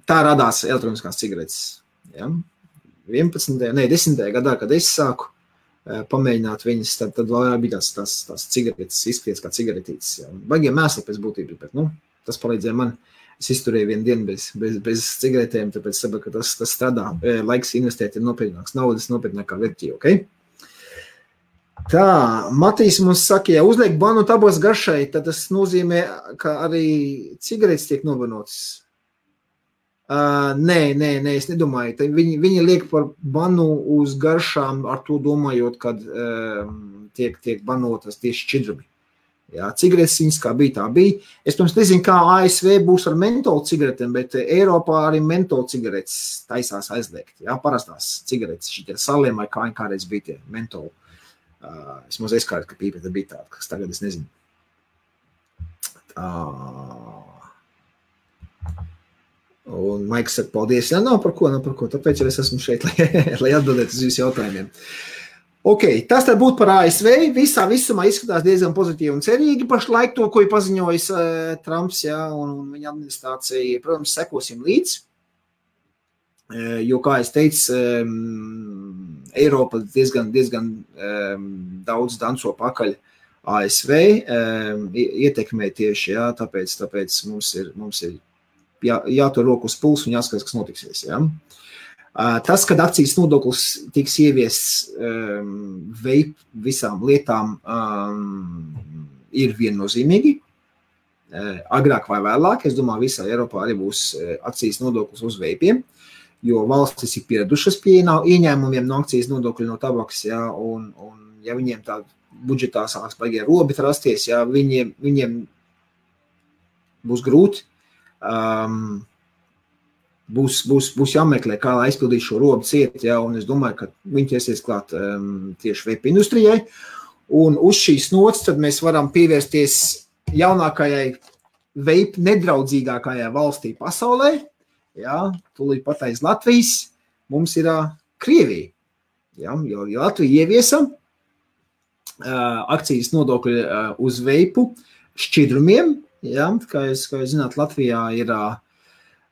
tā radās elektroniskās cigaretes. 10. gadā, kad es sāku pamēģināt viņas, tad vēl bija tās cigaretes, izskaties kā cigaretītes. Baigiem mēsli pēc būtības, bet tas palīdzēja man. Es izturēju vienu dienu bez cigaretēm, tāpēc saprotu, ka tas strādā. Laiks investēt ir nopietnāks naudas, nopietnākā vērtība, ok? Tā, Matīs mums saka, ja uzliek banu tabas garšai, tad tas nozīmē, ka arī cigaretes tiek novanotas. Nē, es nedomāju. Viņi liek par banu uz garšām ar to domājot, kad tiek banotas tieši šķidrumi. Cigaretes viņas kā bija, tā bija. Es pirms nezinu, kā ASV būs ar mentolu cigaretēm, bet Eiropā arī mentolu cigaretes taisās aizliegt. Parastās cigaretes, šitie saliem vai kādreiz bija tie mentolu. Es mazliet skārtu, ka pīpēta bija tāda, kas tagad es nezinu. Un Maiks saka, paldies. Nav par ko, tāpēc jau es esmu šeit, lai atbildētu uz jūsu jautājumiem. Ok, tas tad būtu par ASV. Visumā izskatās diezgan pozitīvi un cerīgi. Pašlaik to, ko ir paziņojis Trumps, un viņa administrācija, protams, sekosim līdz. Jo, kā es teicu, Eiropa diezgan daudz danco pakaļ ASV, ietekmē tieši, tāpēc mums ir jātur roku uz pulsu un jāskatās, kas notiksies. Tas, kad akcijas nodoklis tiks ieviests visām lietām, ir viennozīmīgi. Agrāk vai vēlāk, es domāju, visā Eiropā arī būs akcijas nodoklis uz veipiem. Jo valstis ir pieradušas pie ieņēmumiem no akcijas nodokļu no tabakas, un ja viņiem tā budžetā sāks baigie robi rasties, viņiem būs grūti, būs jāmeklē, kā lai aizpildīt šo robu ciet, un es domāju, ka viņi ķersies klāt tieši veipa industrijai, un uz šīs nots tad mēs varam pievērsties jaunākajai veipa nedraudzīgākajai valstī pasaulē, tūlīt pat aiz Latvijas mums ir Krievija, jo Latvija ieviesa akcijas nodokļu uz veipu šķidrumiem, kā jūs zināt, Latvijā ir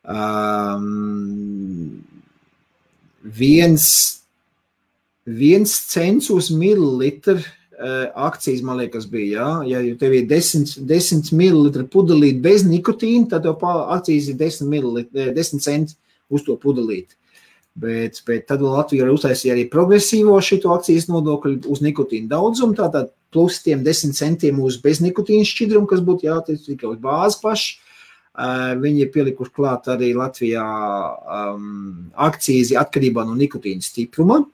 1 cents uz mililitru akcijas, man liekas, bija, ja tev ir 10 mililitru pudelīt bez nikotīna, tad tev akcijas ir 10 centi uz to pudelīt. Bet tad Latvija uztaisīja arī progresīvo šito akcijas nodokļu uz nikotīnu daudzumu, tātad plus tiem 10 centiem uz bez nikotīna šķidrumu, kas būtu jātiec tikai uz bāzi paši. Viņi ir pielikuši klāt arī Latvijā akcijas atkarībā no nikotīna stipruma,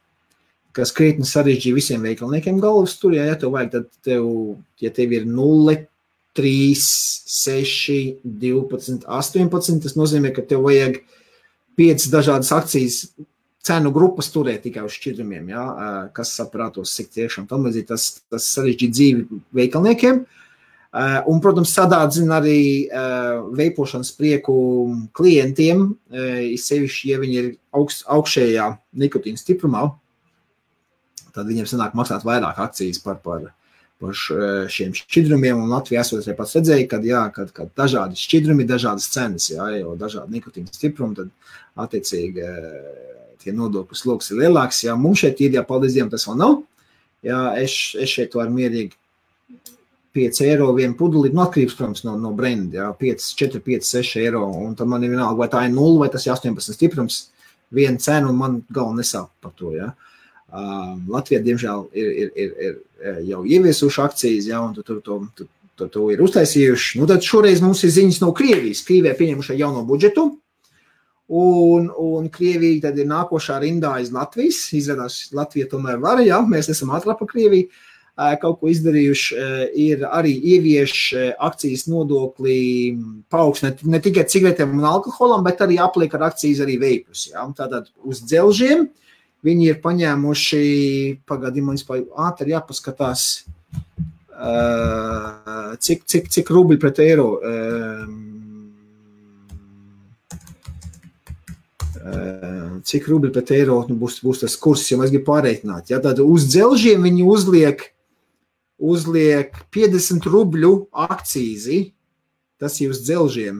kas krietni sarežģīja visiem veikalniekiem galvas tur, ja tev vajag, tad ja tev ir 0 3, 6, 12, 18. Tas nozīmē, ka tev vajag 5 dažādas akcijas cenu grupas turēt tikai uz šķidrumiem, ja? Kas saprātos, cik tiešām tam līdzīgi tas sarežģīt dzīvi veikalniekiem. Un, protams, sadārdzina arī veipošanas prieku klientiem, sevišķi, ja viņi ir augšējā nikotīna stiprumā, tad viņiem sanāk maksāt vairāk akcijas par šiem šķidrumiem, un Latvijā esot arī pats redzēja, kad dažādi šķidrumi, dažādas cenas, jā, jo dažādi nikotīna stiprumi, tad attiecīgi tie nodokļu sloks ir lielāks, jā, mums šeit ir, jā, paldies Dievam, tas vēl nav, jā, es šeit varu mierīgi 5 eiro vienu pudelīt, atkarības, protams, no brenda, jā, 4, 5, 6 eiro, un tad man ir vienalga, vai tā ir 0, vai tas ir 18 stiprums, viena cena, un man galva nesāp par to, jā. Latvijā, diemžēl, ir jau ieviesuši akcijas, ja, un to ir uztaisījuši. Nu, tad šoreiz mums ir ziņas no Krievijas. Krievijā pieņemuši jauno budžetu, un Krievija tad ir nākošā rindā aiz Latvijas. Izrādās, Latvija tomēr var, ja, mēs esam ātrāk par Krieviju. Kaut ko izdarījuši, ir arī ievieš akcijas nodokli paaugstināt ne tikai cigaretēm un alkoholam, bet arī apliek ar akcijas arī veipus. Ja. Tātad uz dzelžiem viņi ir paņēmuši, pagādījumā, ātri jāpaskatās, cik rubļi pret eiro. Cik rubļi pret eiro būs tas kurs, ja mēs gribam pārreikināt. Ja, tad uz dzelžiem viņi uzliek 50 rubļu akcīzi, tas ir uz dzelžiem.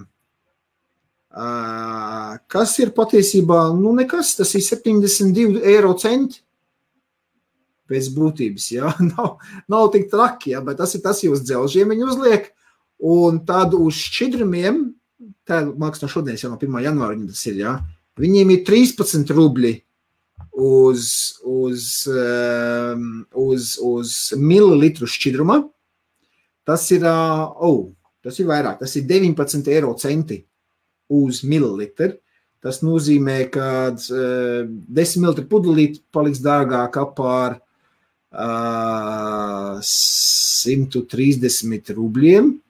Kas ir patiesībā, nu nekas, tas ir 72 eiro centi pēc būtības, jā, nav tik traki, jā, bet tas ir uz dzelžiem viņi uzliek, un tad uz šķidrumiem, tā māks no šodienas, jau no 1. janvāra viņam tas ir, jā, viņiem ir 13 rubļi uz mililitru šķidruma, tas ir vairāk, tas ir 19 eiro centi uz mililitru. Tas nozīmē, ka 10 mililitru pudelīt paliks dārgāk par 130 rubļiem,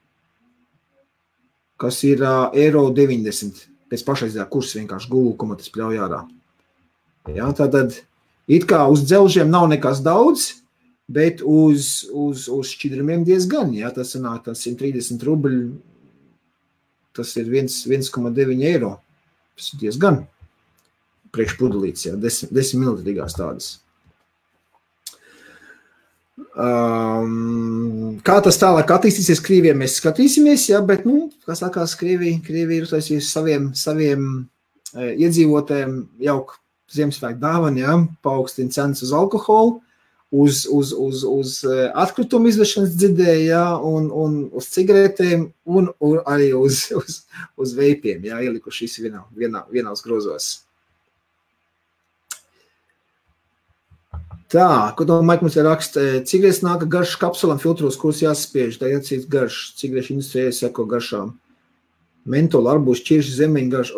kas ir eiro 90. Pēc pašreizējā kursa vienkārši Google, ko man tas pļauj ārā. Ja, tātad, it kā uz dzelžiem nav nekas daudz, bet uz šķidrumiem diezgan. Ja, tas sanāk 130 rubļi, tas ir 1,9 eiro. Tas ir diezgan priekšpudelīts, ja, 10 mililitrīgās tādas. Kā tas tālāk attīstīsies Krievijā, mēs skatīsimies, ja, bet, kā sakās, Krievija ir uztaisījusi saviem iedzīvotājiem jauku Ziemassvētku dāvanu, ja, paaugstina cenas uz alkoholu, uz atkritumu izvešanas dzirdēju, ja, un uz cigaretēm, un arī uz veipiem, ja, ielikuši vienās grozos. Tā, ko to Maik mums ir raksta, cigaretes nāka garš kapsulam filtros, kuras jāsaspiež, tā jācīt garš, cigarešu industrijai seko garšām. Mentola, arbūs, ķirši, zemeņu garš,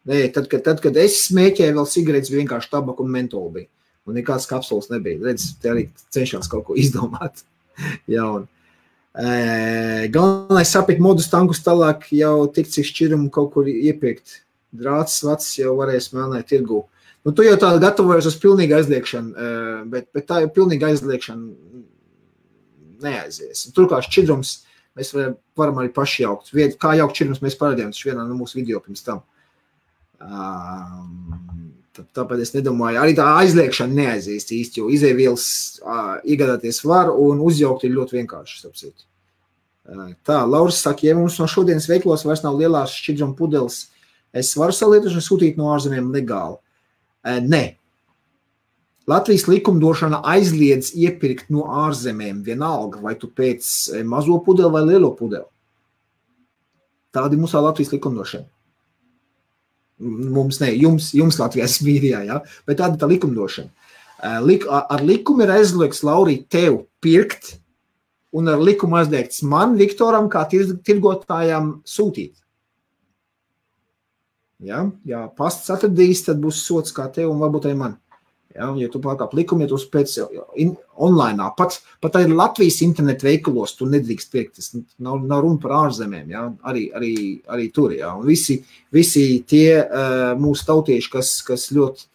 nē, tad, kad es smēķēju, vēl cigaretes bija vienkārši tabaka un mentola bija. Un nekāds kapsulas nebija. Redz, te arī cenšās kaut ko izdomāt. Jauni. Galvenais sapiet modus tankus tālāk jau tik cik šķirumu kaut kur iepirkt. Drāts, vacs jau varēs melnēt tirgū. Nu, tu jau tā gatavojies uz pilnīgu aizliekšanu, bet tā jau pilnīga aizliekšana neaizies. Turklāt šķidrums mēs varam arī paši jaukt. Kā jaukt šķidrums mēs parādījām, tas vienā no mūsu video pirms tam. Tāpēc es nedomāju, arī tā aizliekšana neaizīst īsti, jo izēvielas iegādāties var un uzjaukt ir ļoti vienkārši, sapsīt. Tā, Lauris saka, ja mums no šodienas veiklos vairs nav lielās šķidruma pudeles, es varu salietošanu sūtīt no ārzemēm legāli? Nē. Latvijas likumdošana aizliedz iepirkt no ārzemēm vienalga, vai tu pēc mazo pudeli vai lielo pudeli. Tāda ir mūsā Latvijas likumdošana. Mums ne, jums Latvijas mīrijā, ja? Bet tāda tā likumdošana. Ar likumu ir aizliegts, Laurī, tev pirkt, un ar likumu aizliegts man, Viktoram, kā tirgotājām sūtīt. Ja, pasts atradīs, tad būs sots kā tev un varbūt arī man. Ja, ja tu pārkāp likumu, ja tu pēc online, pat arī Latvijas internetu veikalos tu nedrīkst pirkt, tas nav runa par ārzemēm, ja, arī tur, ja, un visi tie mūsu tautieši, kas ļoti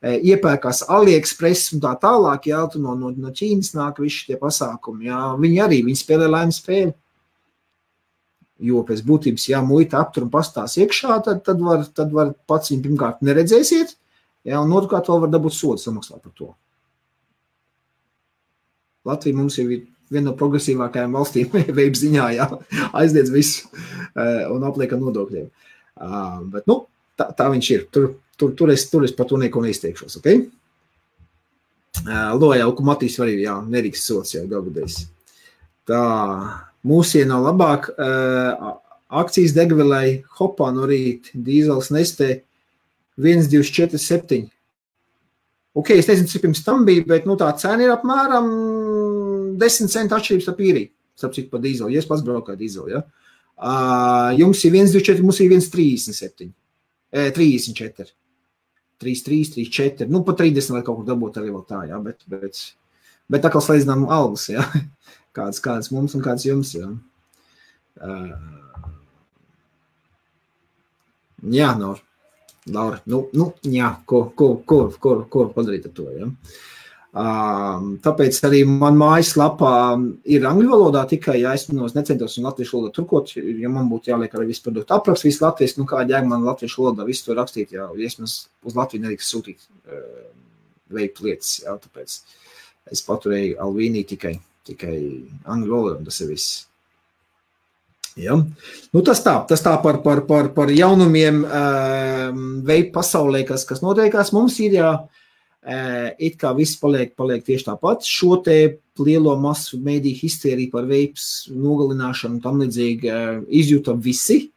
iepērkās AliExpress un tā tālāk, ja, tu no Ķīnas nāk visi tie pasākumi, ja, viņi spēlē laimes spēli, jo pēc būtības, ja muita aptur un pastās iekšā, tad var pats viņu pirmkārt neredzēsiet, ja, un otrkārt vēl var dabūt sodu samaksāt par to. Latvija mums ir viena no progresīvākajām valstīm veib ziņā, ja, aizliedz visu un apliek ar nodokļiem. Bet, tā viņš ir. Tur es par to neko neizteikšos, ok? Loja, ka Matīs var arī, jā, nerīks sots, jā, galvudējs. Tā, mūsien nav labāk. Akcijas degvielai hopā no rīt, dīzels Nestē 1,247. Ok, es nezinu, cik pirms tam bija, bet tā cena ir apmēram 10 centu atšķirības ar īriju. Starp citu par dīzelu, ja es pats braukāju dīzelu, ja. Jums ir 1,24, mums ir 1,37. 34. 3,3, 3,4. Pa 30 vai kaut kur dabūt arī vēl tā, ja, bet tā kā slēdzinām algas, ja. Kāds mums un kāds jums, ja. Jā, Laura, jā, ko padarīt ar to, ja? Tāpēc arī man mājaslapā ir angļu valodā tikai, ja es necentos un latviešu valodā turkot, ja man būtu jāliek arī visu produktu apraksts, visu latviešu, kā jēga man latviešu valodā visu to rakstīt, ja es uz Latviju nedrīkst sūtīt veikt lietas, ja, tāpēc es paturēju Alvīnī tikai angļu valodā, un tas ir viss. Ja. Tas tā par jaunumiem veidu pasaulē, kas notiekās. Mums ir it kā viss paliek tieši tāpat. Šo te lielo masu mēdīju histēriju par veips nogalināšanu tam līdzīgi izjūta visi.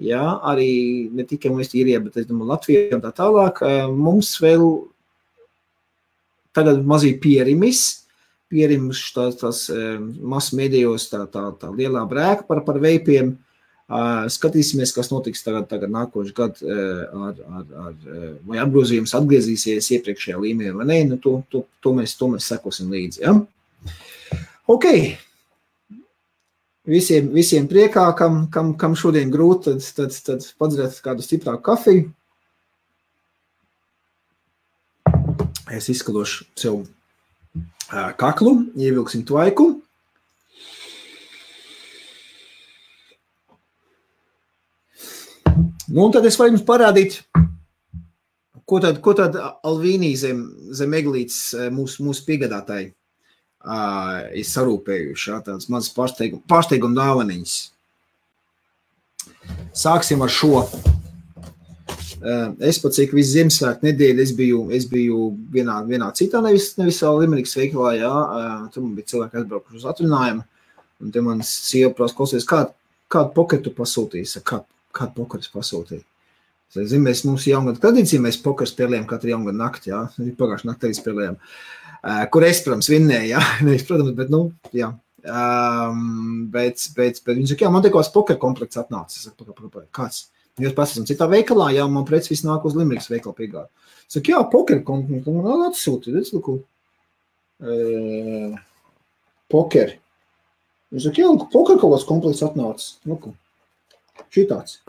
Ja, arī ne tikai mēs īrijā, bet es domāju Latvijā un tā tālāk. Mums vēl tagad mazīgi pierims tās masu mēdījos tā lielā brēka par veipiem. Skatīsimies, kas notiks tagad nākošu gadu vai apgrozījums atgriezīsies iepriekšējā līmenī vai ne, to mēs sekosim līdzi. Ja? Ok. Visiem priekā, kam šodien grūti, tad padzeriet kādu stiprāku kafiju. Es izskalošu sev kaklu, ievilksim tvaiku. Un tad es varu jums parādīt, ko tad Alvīnī zem eglītes mūsu piegādātāji ir sarūpējuši, tādas mazas pārsteiguma dāvaniņas. Sāksim ar šo. Es pat cik visu Ziemassvētku nedēļu es biju vienā citā, nevis vēl Limerikas veikalā, jā, tur man bija cilvēki aizbraukuši uz atrunājumu, un te man sieva prasa klausies, kādu poketu pasūtīs, kādu poketu pasūtīja. Es zinu, mums jaungada tradīcija, mēs pokeru spēlējam katru jaungada nakti, jā, pagājuši nakti arī spēlējam, kur es, protams, vinnēju, jā, nevis, protams, bet, jā. Bet viņi saka, jā, man te kāds pokeru komplekts atnāca, es saku, kāds? Jūs pēc esam citā veikalā, jā, man preci viss nāk uz Limerikas veikalu piegādu. Saka, jā, poker komplekts, man atsūti, redz, luku, poker. Viņš saka, jā, luku, poker kaut kāds komplekts atnāca, luku, šitāds.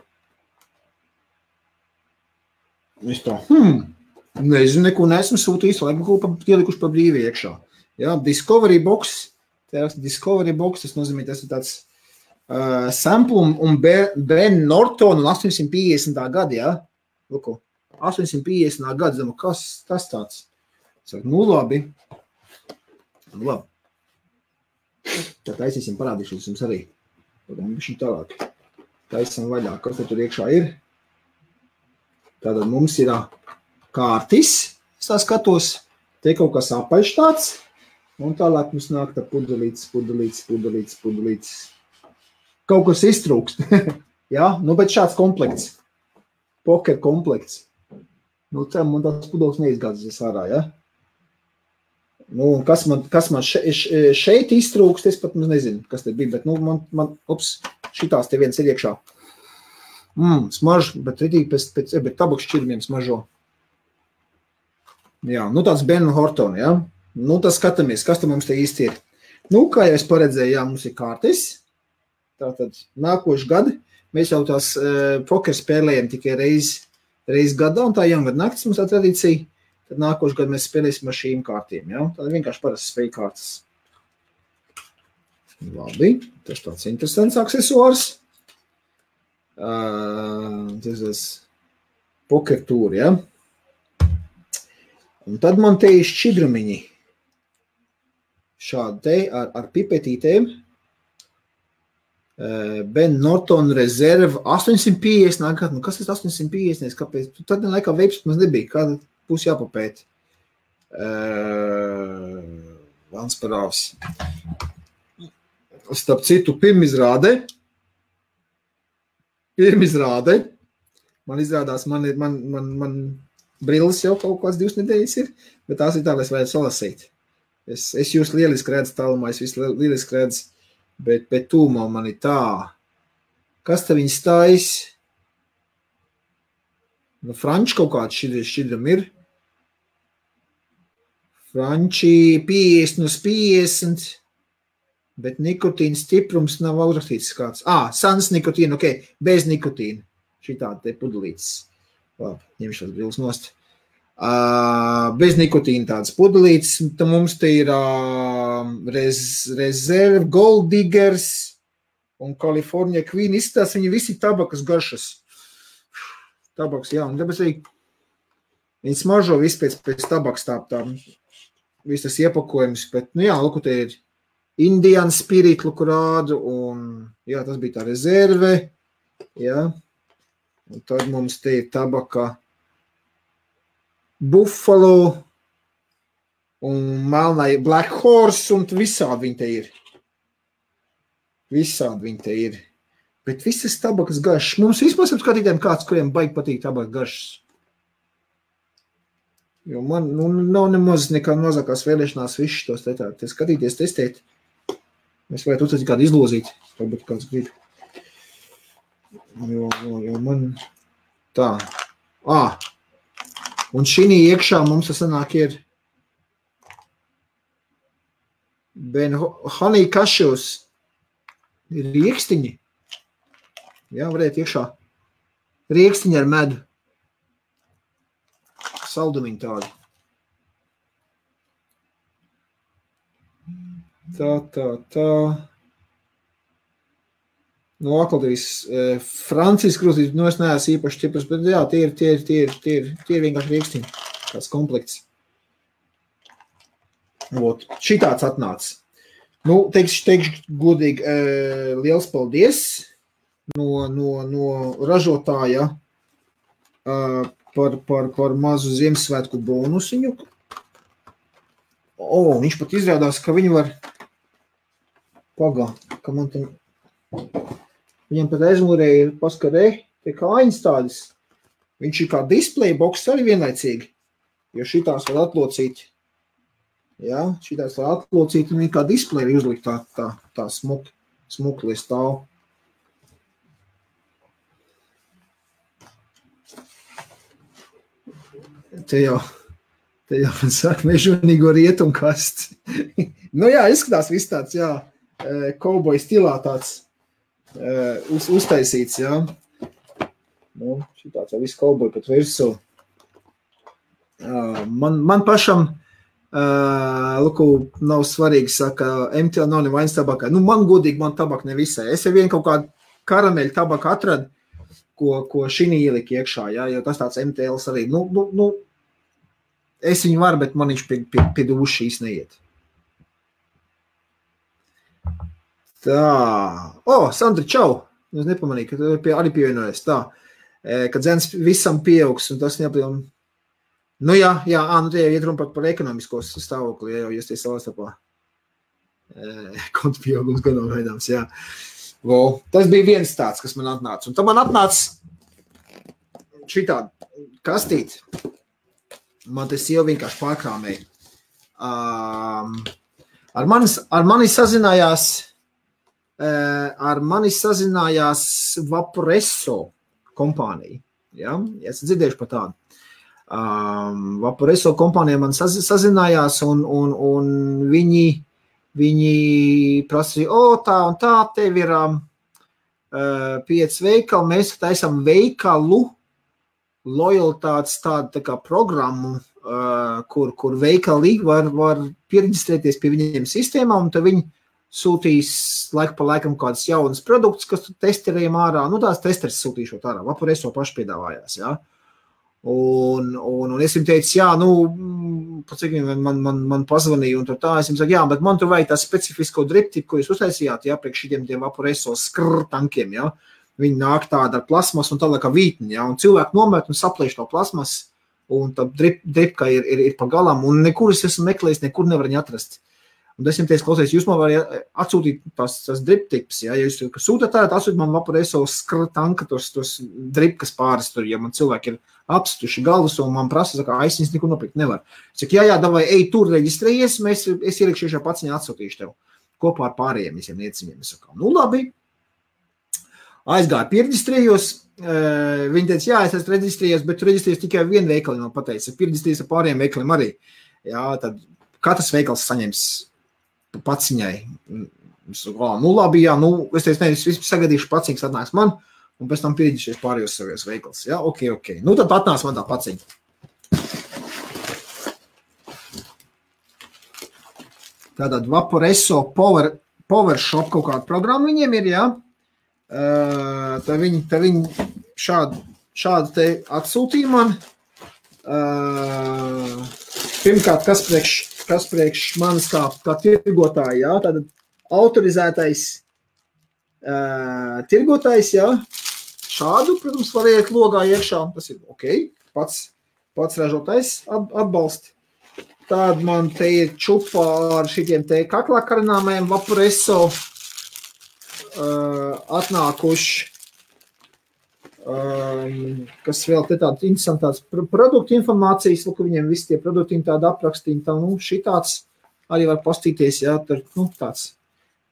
Es tā, nezinu, neko neesmu sūtījis, lai ielikuši pa brīvi iekšā. Jā, Discovery Box, tas nozīmē, tas ir tāds sample un Ben Norton un 850. Gada, jā? Luku, 850. Gada, zinu, kas tas tāds? Saku, labi. Labi. Tad taisīsim, parādīšu jums arī. Bišķi tālāk. Taisam vaļā, kas tur iekšā ir. Tātad mums ir kārtis, es tā skatos, te kaut kas apaļš tāds, un tālāk mums nāk tā pudelītes. Kaut kas iztrūkst. Ja? Bet šāds komplekts. Poker komplekts. Man tās pudeles neizgādzas ārā, ja? Kas man šeit iztrūkst, es pat nezinu, kas te bija, bet šitās te viens ir iekšā. Smaž, bet ritīgi bet tabaks šķirmiem smažo. Jā, nu tāds Ben Horton, jā. Nu, tas skatāmies, kas tam mums te īsti ir. Nu, kā jau es paredzēju, jā, mums ir kārtis. Tātad nākošu gadu mēs jau tās poker spēlējam tikai reiz gadā, un tā jaungada naktis mums tā tradīcija. Tad nākošu gadu mēs spēlēsim ar šīm kārtīm, jā. Tad vienkārši parasti spēļu kārtas. Labi, tas tāds interesants aksesuārs. Tas ir poker tūri, jā. Un tad man te ir šķidrumiņi. Šādi te ar pipetītēm. Ben Norton Reserve 850 nākat. Nu, kas ir 850? Kāpēc? Tad laikā veips mums nebija. Kāda būs jāpapēt? Vans parāvs. Starp citu, pirmizrāde. Man izrādās, man brilles jau kaut kāds 2 nedēļas ir, bet tās ir tā, lai es varētu salasīt. Es jūs lieliski redzu tālumā, es visu lieliski redzu, bet tūmā man ir tā. Kas te viņi stājas? Nu, franči kaut kāds šķidram ir. Franči 50 uz 50, bet nikotīna stiprums nav uzrakstīts kāds. Sans nikotīna, ok, bez nikotīna. Šitādi te pudelītes. Labi, ņemšu tās brilles nost. Bez nikotīna tādas pudelītes. Tad mums te ir Reserve, Gold Diggers un California Queen. Izstās viņi visi tabakas garšas. Tabaks, jā, un tāpēc arī viņi smaržo visu pēc tabaks tā viss tas iepakojums. Bet, nu jā, luku te ir Indian Spirit, luku rādu, un jā, tas bija tā Reserve. Jā. Un tad mums te ir tabaka Buffalo un melnai Black Horse, un visādi viņi te ir. Bet visas tabakas garšas. Mums vispār skatītēm kāds, kuriem baigi patīk tabakas garšas. Jo man nav nemaz nekā mazākās vēlēšanās visus tos te skatīties, testēt. Mēs varētu uztaisīt kādu izlozīt, varbūt kāds grib. Jo man tā. Un šī iekšā mums sanāk ir Ben Honey Cashews ir riekstiņi. Jā, varētu iekšā. Riekstiņi ar medu. Saldumiņi tādi. Tā. No aklotīs Francijas krūtīs, nu es neesmu īpaši ķipras, bet jā, tie ir vienkārši riekstiņi, kāds komplekts. Šitāds atnāca. Nu, teikšu godīgi, liels paldies no ražotāja par mazu Ziemassvētku bonusiņu. Viņš pat izrādās, ka viņi var ka man te viņam pat aizmūrē ir paskarē, tie kājiņas tādas. Viņš ir kā display box arī vienlaicīgi, jo šitās var atlocīt. Jā, šitās var atlocīt un viņi kā display uzlikt tā smukli stāv. Te jau man saka mežonīgo rietumkasts. Nu jā, izskatās viss tāds, jā, kauboja stilā tāds. Uztaisīts, jā. Nu, šitāds jau viss kauboja pat virsū. Man pašam, nav svarīgi, saka, MTL nav nevainas tabakā. Nu, man godīgi, man tabaka nevisai. Es jau vien kaut kādu karameļu tabaku atradu, ko šinī ielika iekšā, jā, jo tas tāds MTLs arī. Nu, es viņu varu, bet man viņš pie dušas šīs neiet. Tā. Sandra, čau. Es nepamanīju, ka tu arī pievienojies. Tā. Kad dzens visam pieaugs, un tas neapļam. Nu jā, nu tie iet runa par ekonomiskos stāvokli, ja jau jūs tie savā starpā. Kontu pieaugums gadam veidams, jā. Tas bija viens tāds, kas man atnāca. Un tad man atnāca šitādi kastīt. Man tas jau vienkārši pārkrāmēja. Ar mani sazinājās Vaporesso kompānija. Ja? Esat dzirdējuši par tādu. Vaporeso kompānija man sazinājās, un viņi prasīja, tā un tā, tev ir 5 veikali, mēs taisam veikalu lojalitātes tādu tā kā programmu, kur veikali var pieregistrēties pie viņiem sistēmā, un tad viņi sūtīs laiku pa laikam kādas jaunas produktus, kas tu testerējam ārā. Tās testeris sūtīšot ārā. Vaporeso paši piedāvājās, jā. Un es viņam teicu, man pazvanīja, un tā, es viņam saku, bet man tur vajag tā specifisko driptipu, ko jūs uztaisījāt, priekš šitiem Vaporeso tankiem, jā. Viņi nāk tāda ar plasmas un tālāk kā vītni, jā, un cilvēki nomet un saplēš to plasmas, un tā dripka ir pa galam, un nekur es esmu meklējis, nekur nevar viņu atrast. Un es viņam teicu, klausies, jūs man varat atsūtīt tās driptips, ja jūs sūtat tā, atsūtīt man Vaporeso tanka tos dripkas pāris tur, ja man cilvēki ir apstuši galvas, un man prasa, saka, es viņas nekur nopirkt nevar. Es saku, jā, davai, ej tur reģistrējies, es ielikšu šajā paciņā atsūtīšu tev kopā ar pārējiem visiem nieciņiem. Es saku, labi. Aizgāju, piereģistrējos, viņi teica, jā, es esmu reģistrējies, bet tu reģistrējies tikai vienu veikali, man pateica, piereģistrējies ar pārējiem veikaliem arī. Jā, tad katrs veikals saņems paciņai. Es saku, labi, jā, es teicu, es vispār sagadīšu paciņas atnāks man, un pēc tam piereģistrējies pārējos savos veikals. Jā, ok. Tad atnāks man tā paciņa. Tātad Vaporeso PowerShop kaut kāda programma viņiem ir, jā. Tad viņi šādu te atsūtīja man. Pirmkārt, kas priekš manis kā tirgotāji, jā, tātad autorizētais tirgotājs, jā, šādu, protams, var iet logā iekšā, tas ir ok, pats ražotājs atbalsti. Tād man te ir čupa ar šitiem te kaklā karināmajiem Vaporeso atnākuši, kas vēl te tādas interesantādas produktu informācijas, ka viņiem visi tie produkti tādi aprakstīni, šitāds arī var pastīties, jā, tur, tāds,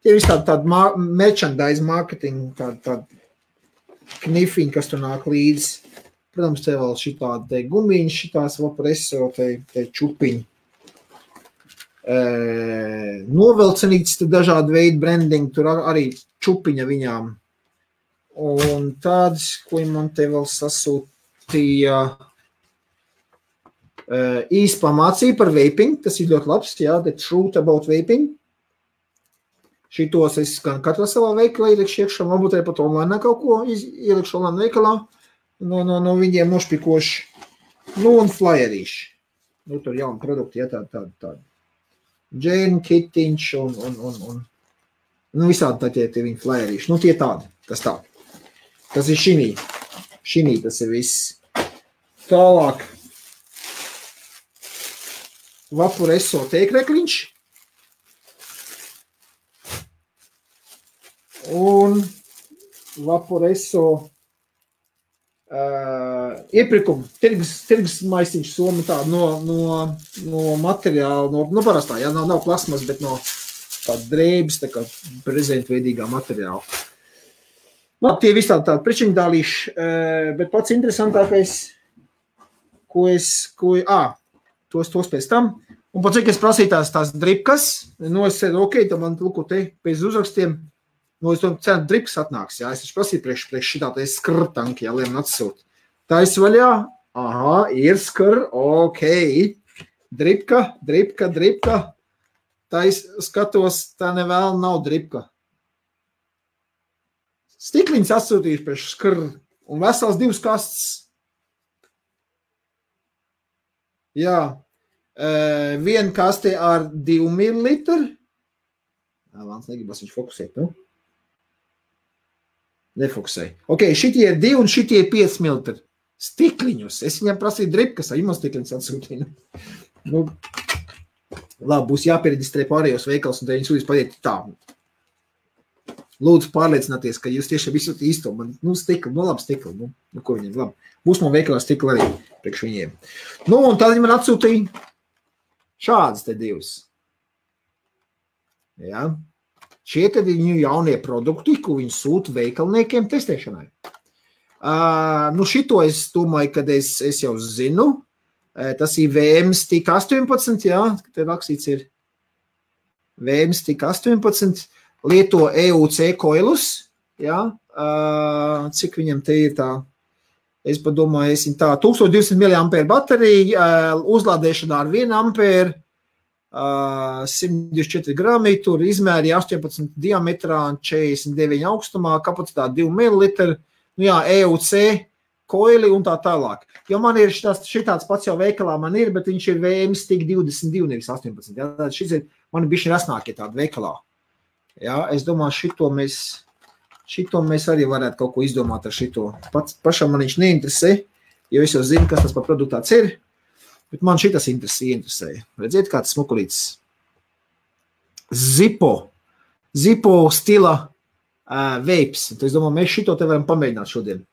tie visi tādi merchandise marketing, tādi knifiņi, kas tur nāk līdzi. Protams, te vēl šitādi te gumiņi, šitās Vaporeso, te čupiņi. Novelcenīts, dažādi veidi branding, tur arī čupiņa viņām. Un tāds, ko man te vēl sasūtīja, īsti mācīja par vaping, tas ir ļoti labs, jā, the truth about vaping. Šitos es gan katrā savā veikalā ielikšu iekšā, varbūt arī pat online kaut ko ielikšu online veikalā, no viņiem nošpikoši, un flyerīši. Tur jauni produkti, jā, tādi. Džēna, kitiņš un visādi tie viņi flyerīši. Tie tādi, tas tā. Tas ir šinī tas ir viss. Tālāk. Vaporeso teikrekliņš. Un Vaporeso iepirkuma, tirgus maisiņš soma tā no materiāla, no parastā, jā, nav plasmas, bet no tāda drēbes, tā kā prezentveidīgā materiāla. Tie visi tādi priekšņdālīši, bet pats interesantākais, tos pēc tam, un pēc cik es prasīju tās dripkas, es ceru, ok, tad man lūko te pēc uzrakstiem, es to ceru, dripkas atnāks, jā, es taču prasīju priekš šitā te skrtanki, jā, lai man atsūt. Tā es vaļā, ir skr, ok, dripka, tā es skatos, tā nevēl nav dripka. Stikliņas atsūtījuši priekš skr, un vesels 2 kastes. Jā, viena kaste ar 2 millilitru. Vāns negribas viņš fokusēt, Nefokusēja. Ok, šitie ir 2 un šitie ir 5 millilitri. Stikliņus. Es viņam prasīju dripkas, vai man stikliņus atsūtīju. Labi, būs jāpiereģistrē pārējos veikals, un te viņi sūtīs padiet tā. Lūdzu pārliecināties, ka jūs tiešām visu īsto. Stikli, labi stikli. Ko viņiem, labi. Būs man veikalā stikli arī priekš viņiem. Un tad viņi man atsūtīja šādas te 2. Jā. Šie tad ir viņu jaunie produkti, ko viņi sūta veikalniekiem testēšanai. Šito es domāju, kad es jau zinu. Tas ir VM-Stick 18, jā, te rakstīts ir VM-Stick 18, lieto EUC koilus, jā, cik viņam te ir tā, es padomāju, tā 1200 mAh baterija, uzlādēšanā ar 1 ampēru, 124 grami, tur izmēri 18 diametrā, 49 augstumā, kapacitāte 2 ml, nu jā, EUC, koili un tā tālāk. Jo man ir šitāds pats jau veikalā man ir, bet viņš ir VM-Stick 22, nevis 18. Jā, šis ir, man ir bišķi rasnākie tādi veikalā. Jā, es domāju, šito mēs arī varētu kaut ko izdomāt ar šito. Pašam man viņš neinteresē, jo es jau zinu, kas tas par produktu tāds ir. Bet man šitas interesē. Redziet, kāds smukulīts. Zippo stila vapes. Es domāju, mēs šito te varam pamēģināt šodien.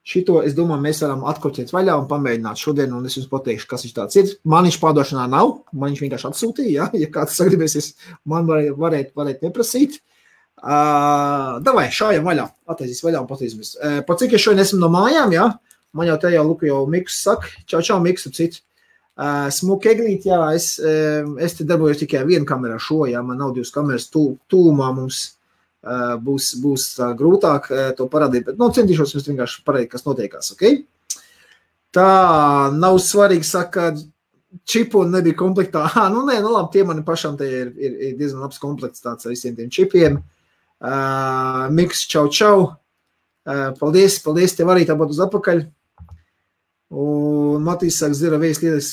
Šito, es domāju, mēs varam atkoķēt vaļā un pamēģināt šodien, un es jums pateikšu, kas viņš tāds ir. Man viņš pārdošanā nav, man viņš vienkārši atsūtīja, ja kāds sagribēsies, man varētu neprasīt. Davai, šājam vaļā, attaisīs vaļā un patīsimies. Par cik es šodien esmu no mājām, ja? Man jau te jau Miks saka, čau, Miks, cit. Smuki eglīt, jā, es te darbojos tikai vienu kamerā šo, jā, man nav 2 kameras tūmā mums būs grūtāk to parādīt, bet, centīšos jums vienkārši parādīt, kas notiekās, ok? Tā nav svarīgi, saka, čipu nebija komplektā. Labi, tie mani pašam te ir diezgan labs komplekts tāds ar visiem tiem čipiem. Miks, čau. Paldies, tev arī tāpat uz atpakaļ. Un Matīs saka, zira vējs lietas,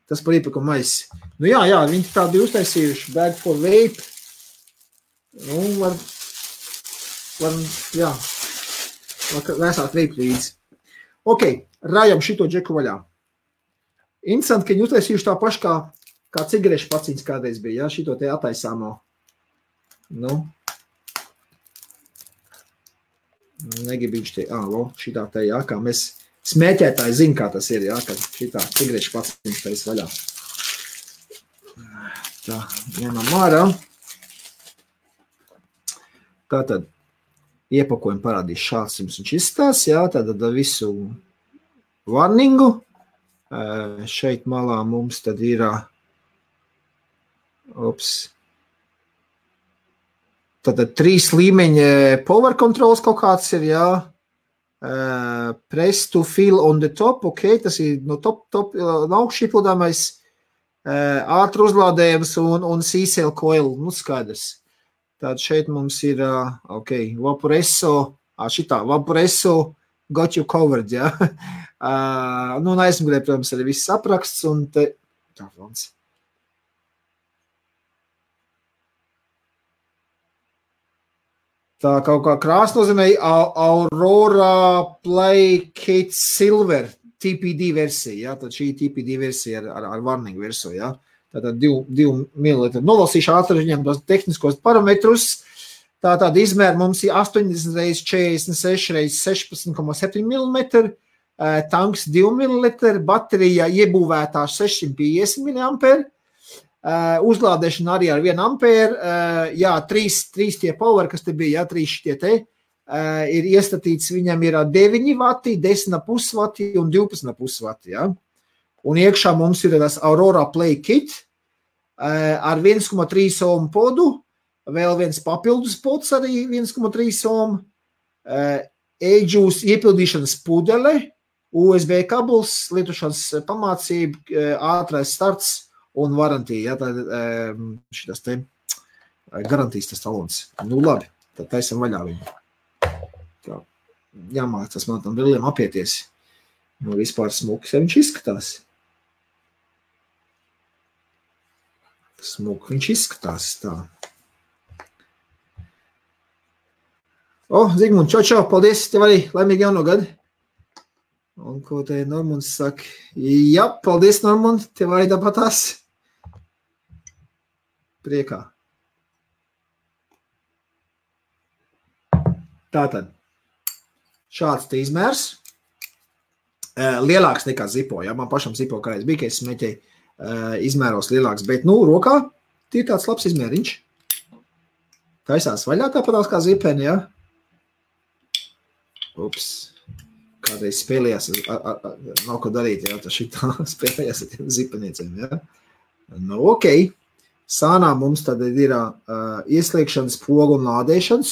tas par iepirkumu maisi. Nu jā, viņi tādi uztaisījuši, bag for vape. Var vēsāt vape līdzi. Ok, rājam šito džeku vaļā. Interesanti, ka viņi uztaisījuši tā paši kā cigarešu paciņas kādreiz bija, ja, šito te attaisāmo. Negribu viņš te, šitā te, jā, kā mēs smēķētāji zina, kā tas ir, jā, kad šitā cigarešu paciņas tais vaļā. Tā, ņemam ārā. Tātad, iepakojumu parādīs šāds jums viņš izstās, jā, tātad visu warningu. Šeit malā mums tad ir, tātad 3 līmeņa power controls kaut kāds ir, jā. Press to fill on the top, ok, tas ir no top augšķi iepludāmais, ātru uzlādējums un C-cell coil, skaidrs. Tātad šeit mums ir, ok, Vaporesso, Vaporesso got you covered, jā. Aizmugurē, protams, arī viss apraksts un te, tā, Frans. Tā kaut kā krāsa nozīmē Aurora Play Kit Silver TPD versija, ja? Tad šī TPD versija ar warning versiju, ja? Tātad 2 ml. Nolasīšu ātri viņam tos tehniskos parametrus. Tātad izmēr mums ir 80 x 46 x 16,7 mm, tanks 2 ml, baterija iebūvētā 650 mAh, uzlādēšana arī ar 1 ampēru, jā, 3 tie power, kas te bija, jā, 3 šitie te, ir iestatīts, viņam ir 9 vati, 10,5 vati un 12,5 vati, jā. Un iekšā mums ir tas Aurora Play Kit ar 1,3 ohm podu, vēl viens papildus pods arī 1,3 ohm, e-juice iepildīšanas pudele, USB kabuls, lietošanas pamācība, ātrais starts un warantija, ja, tā šitas te garantijas tas talons. Nu labi, tad taisam vaļā viņu. Tā, jāmācās man tam brilliem apieties. Nu vispār smuks, ja viņš izskatās. Smuk, viņš izskatās tā. Zigmund, čau, paldies, tev arī laimīgi jauno gadu. Un ko te Normunds saka? Jā, paldies, Normund, tev arī tāpatās. Priekā. Tātad, šāds te izmērs. Lielāks nekā Zippo, ja? Man pašam Zippo kādreiz bija, ka es smēķēju izmēros lielāks, bet, rokā tie ir tāds labs izmēriņš. Taisās vaļā tāpatās kā zipeni, ja? Ups. kādreiz spēlējās, nav ko darīt, jā, tas šitā spēlējās ar tiem zipenieciem, jā. Nu, ok. Sānā mums tad ir ieslēgšanas pogu un lādēšanas.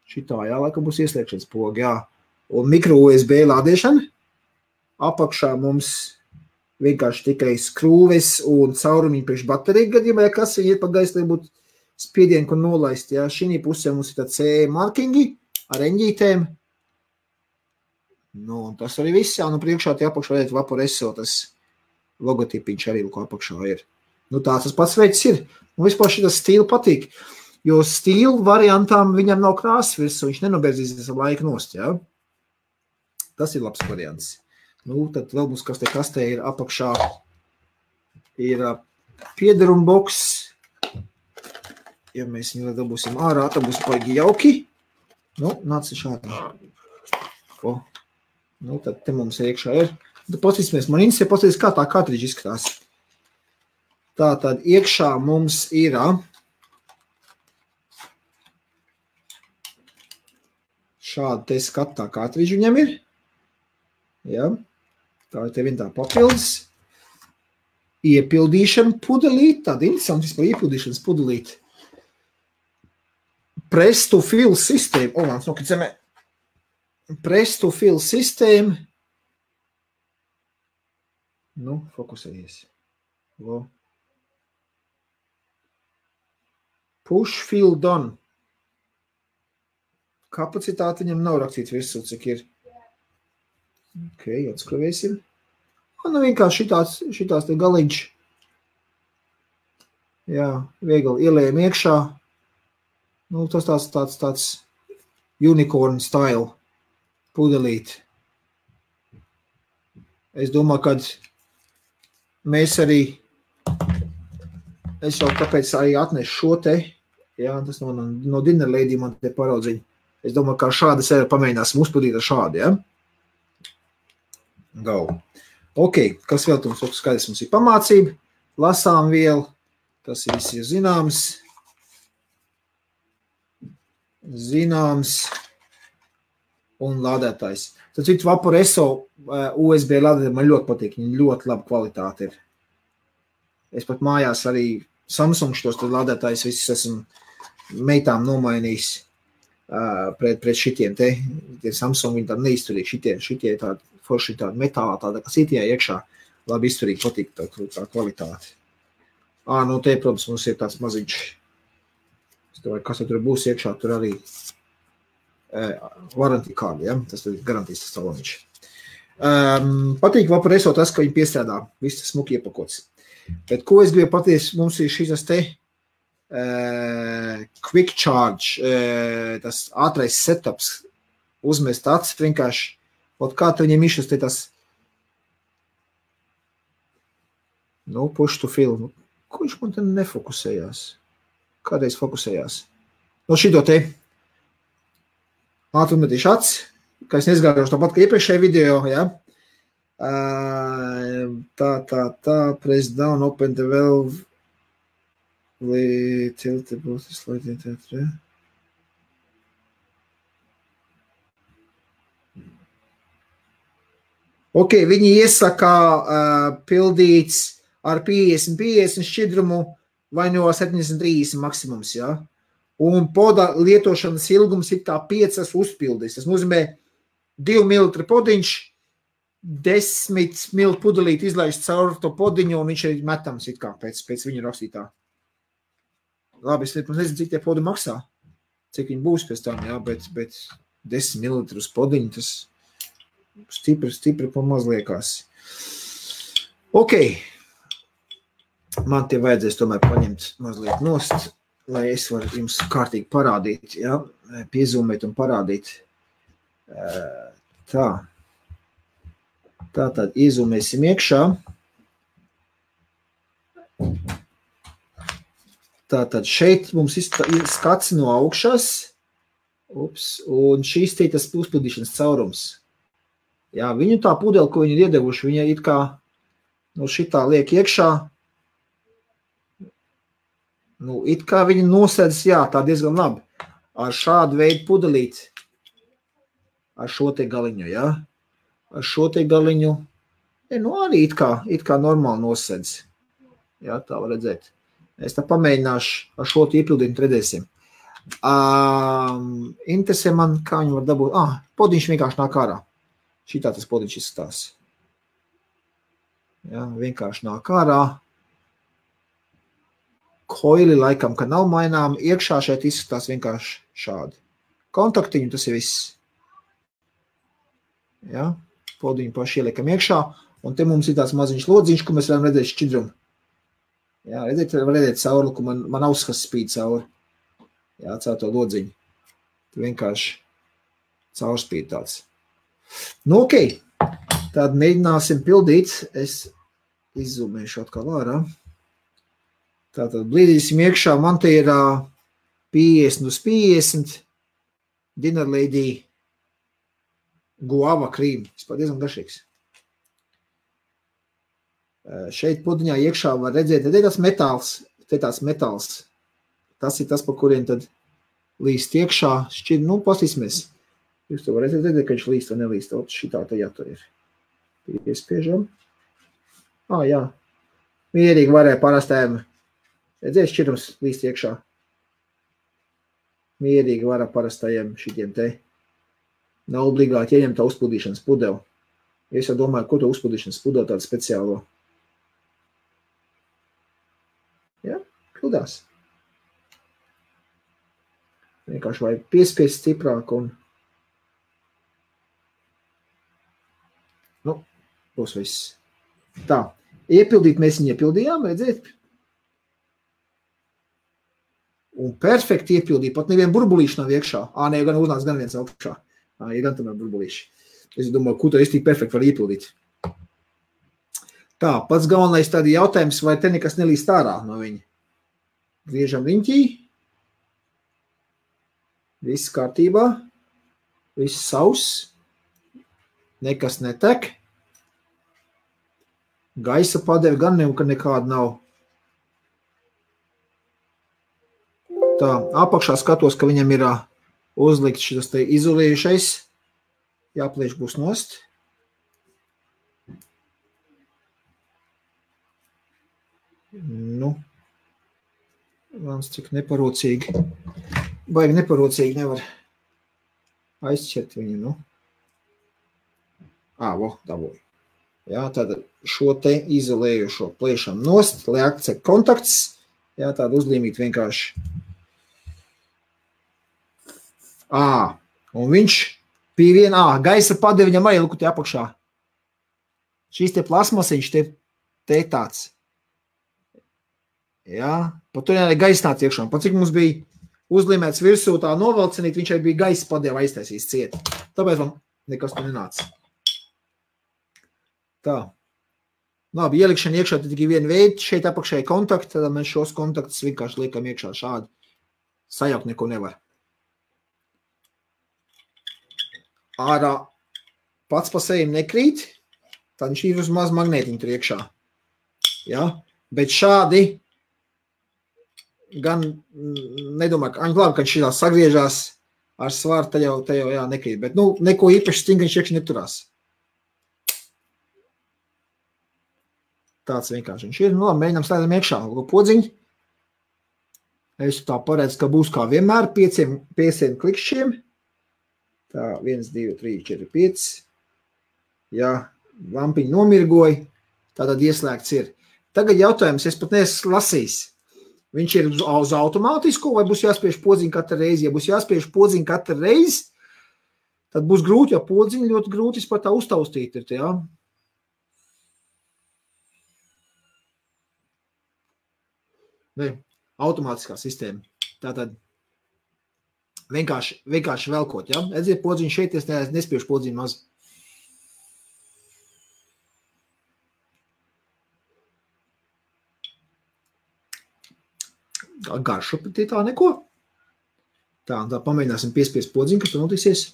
Šitā, jā, laikam būs ieslēgšanas poga, jā. Un mikro USB lādēšana. Apakšā mums vienkārši tikai skrūves un caurumiņi priekš bateriju gadījumā, ja kas viņi ir pa gaisu, lai būtu spiedienu, ko nolaist, jā. Šī pusē mums ir tā CE markingi ar eņģītēm. Nu, un tas arī viss, jā, nu priekšā tie apakšā redzēt Vaporesso, tas logotipiņš arī, ko apakšā ir. Nu, tāds tas pats veids ir. Un vispār šitas stīla patīk, jo stīla variantām viņam nav krāsas virsū, viņš nenobērzīsies ar laiku nost, jā. Tas ir labs variants. Nu, tad vēl mums kas te kastē ir apakšā, ir piederuma boks. Ja mēs viņu dabūsim ārā, tad būs paigi jauki. Nu, nāc šādi. O. Nu, tad te mums iekšā ir. Tad paskatīsimies, man interesē paskatīties, kā tā kartridža izskatās. Tā tad iekšā mums ir šāda te skatā kartridža viņam ir. Ja? Tā ir te vien tā papildus. Iepildīšana pudelīt, tāda interesanti vispār iepildīšanas pudelīt. Press to fill sistēma. O, nāc nokrit zemē. Press to fill sistēma. Nu, fokusējies. O. Push fill done. Kapacitāte viņam nav rakstīts virsū, cik ir. Ok, atskruvēsim. Nu, vienkārši šitās te galiņš. Jā, viegli ielējam iekšā. Nu, tas tāds unicorn style pudelīt. Es domāju, kad mēs arī, es jau tāpēc arī atnešu šo te, jā, tas no Dinner Lady man te paraudziņa. Es domāju, kā šāda sēra pamēģināsim uzpildīt ar šādu, jā. Go. Ok, kas vēl mums skaidrs? Mums ir pamācība, lasām vielu, tas viss ir zināms, un lādētājs. Tad citu Vaporesso USB lādētāji man ļoti patīk, viņi ļoti laba kvalitāte ir. Es pat mājās arī Samsung šitos lādētājus visus esmu meitām nomainījis pret šitiem te. Tie Samsung viņi tādi neizturīgi, šitie tādi forši tādi metālā, tāda, kas itie iekšā, labi izturīgi patīk tā kvalitāte. Nu te, protams, mums ir tāds maziņš. Es domāju, kas tur būs iekšā, tur arī warranty card, ja? Tas ir garantijas tas taloniņš. Patīk Vaporesso tas, ka viņi piestrādā, viss tas smuki iepakots. Bet ko es gribu pateikt, mums ir šis te quick charge, tas ātrais setups, uzmest acis vienkārši, kā tu viņiem išas te tas, nu, push to fill, ko viņš man te nefokusējās? Kādreiz fokusējās? No šito te, ātrummetīšu acis, kā es nezgājuši tāpat, ka iepriekšējā video, ja? Press down, open the valve, tiltable, slide it, ja? Ok, viņi iesaka pildīts ar 50 šķidrumu vai no 70-30 maksimums, ja? Un poda lietošanas ilgums ir kā 5 uzpildīs. Tas nozīmē 2 ml podiņš, 10 ml pudelīt izlaiž caur to podiņu, un viņš ir metams it kā pēc viņa rakstītā. Labi, es nezinu, cik tie podi maksā, cik viņi būs pēc tam, jā, bet 10 ml podiņu, tas stipri pamaz liekās. Ok, man tie vajadzēs tomēr paņemt mazliet nost, lai es varu jums kārtīgi parādīt, ja? Piezūmēt un parādīt. Tātad iezūmēsim iekšā. Tātad šeit mums ir skats no augšas, un šīs te tas uzpildīšanas caurums. Jā, viņu tā pudeli, ko viņi ir iedevuši, viņa it kā no šitā liek iekšā. Nu, it kā viņi nosēdz, jā, tā diezgan labi. Ar šādu veidu pudelīt, ar šo te galiņu, jā. ar šo te galiņu, arī it kā normāli nosedz. Jā, tā var redzēt. Es tā pamēģināšu ar šo te iepildīt, redzēsim. Interesē man, kā viņi var dabūt. Podiņš vienkārši nāk ārā. Šitā tas podiņš izskatās. Jā, vienkārši nāk ārā. Koili laikam, ka nav mainām, iekšā šeit izskatās vienkārši šādi. Kontaktiņu, tas ir viss. Ja? Podiņu paši ieliekam iekšā, un te mums ir tāds maziņš lodziņš, ko mēs varam redzēt šķidrumu. Ja, var redzēt cauri, ka man auskas spīd cauri. Ja, caur to lodziņu. Tu vienkārši caurspīd tāds. Nu, ok. Tad mēģināsim pildīt. Es izzūmēšu atkal ārā. Tātad blīdīsim iekšā, man te ir 50 uz 50 Dinner Lady guava krīm. Tas pat diezgan garšīgs. Šeit podiņā iekšā var redzēt, te tāds metāls. Tas ir tas, pa kuriem tad līst iekšā. Šķiet, pastīsimies. Jūs to var redzēt, ka viņš līst vai nelīst. Šitā te jātur ir. Piespiežam. Jā. Mierīgi varēja parastēm. Redzēs, šķirums līst iekšā. Mierīgi var parastajiem šitiem te. Nav obligāti ieņem tā uzpildīšanas pudeli. Es jau domāju, ko to uzpildīšanas pudeli tādu speciālo. Ja, pildās. Vienkārši vajag piespiest stiprāk un būs viss. Tā, iepildīt mēs viņu iepildījām, redzēt? Un perfekti iepildīja, pat nevienu burbulīšu nav iekšā. Nē, gan uznāc gan viens augšā. Ir gan tomēr burbulīši. Es domāju, ko to es tik perfekti var iepildīt. Tā, pats galvenais tādi jautājums, vai te nekas nelīst ārā no viņa. Griežam riņķī. Viss kārtībā. Viss sauss. Nekas netek. Gaisa padeve gan nekāda nav. Tā, apakšā skatos, ka viņam ir uzlikt šis te izolējušais. Jāplieš būs nost. Vāns cik neparocīgi. Baigi neparocīgi nevar aizķert viņu, dabūju. Jā, tad šo te izolējušo pliešam nost, lai akcek kontakts. Jā, tādu uzlīmīt vienkārši. Un viņš pie viena, gaisa padeve viņam arī luku te apakšā. Šīs te plasmasiņš te tāds. Jā, pat tur arī gaisa nāc iekšā. Pat cik mums bija uzlīmēts virsū tā novalcinīt, viņš arī bija gaisa padeve aiztaisīs cieti. Tāpēc man nekas tur nenāca. Tā. Labi, ielikšana iekšā tad tikai viena veida, šeit apakšēji kontakti, tad mēs šos kontaktus vienkārši liekam iekšā šādi. Sajaukt neko nevar. Ārā pats pa sevi nekrīt, tad viņš ir uz maz magnētiņu tur iekšā. Ja? Bet šādi gan nedomāju, ka labi, kad šitā sagriežās ar svaru, te jau nekrīt. Bet neko īpaši stingriņš iekšā neturās. Tāds vienkārši viņš ir. Labi, mēģinām slēdam iekšā podziņu. Es tā paredzu, ka būs kā vienmēr 5 klikšķiem. Tā, 1, 2, 3, 4, 5. Jā, lampiņi nomirgoja. Tātad ieslēgts ir. Tagad jautājums, es pat neesmu lasījis. Viņš ir uz automātisko vai būs jāspiež podziņu katru reizi? Ja būs jāspiež podziņu katru reizi, tad būs grūti, jo podziņu ļoti grūti pat tā uztaustīt ir. Jā. Ne, automātiskā sistēma. Tātad vienkārši velkot, ja? Edziet podziņu šeit, es nespiešu podziņu maz. Garšu tā neko. Tā pamēģināsim piespiest podziņu, kas tur notiksies.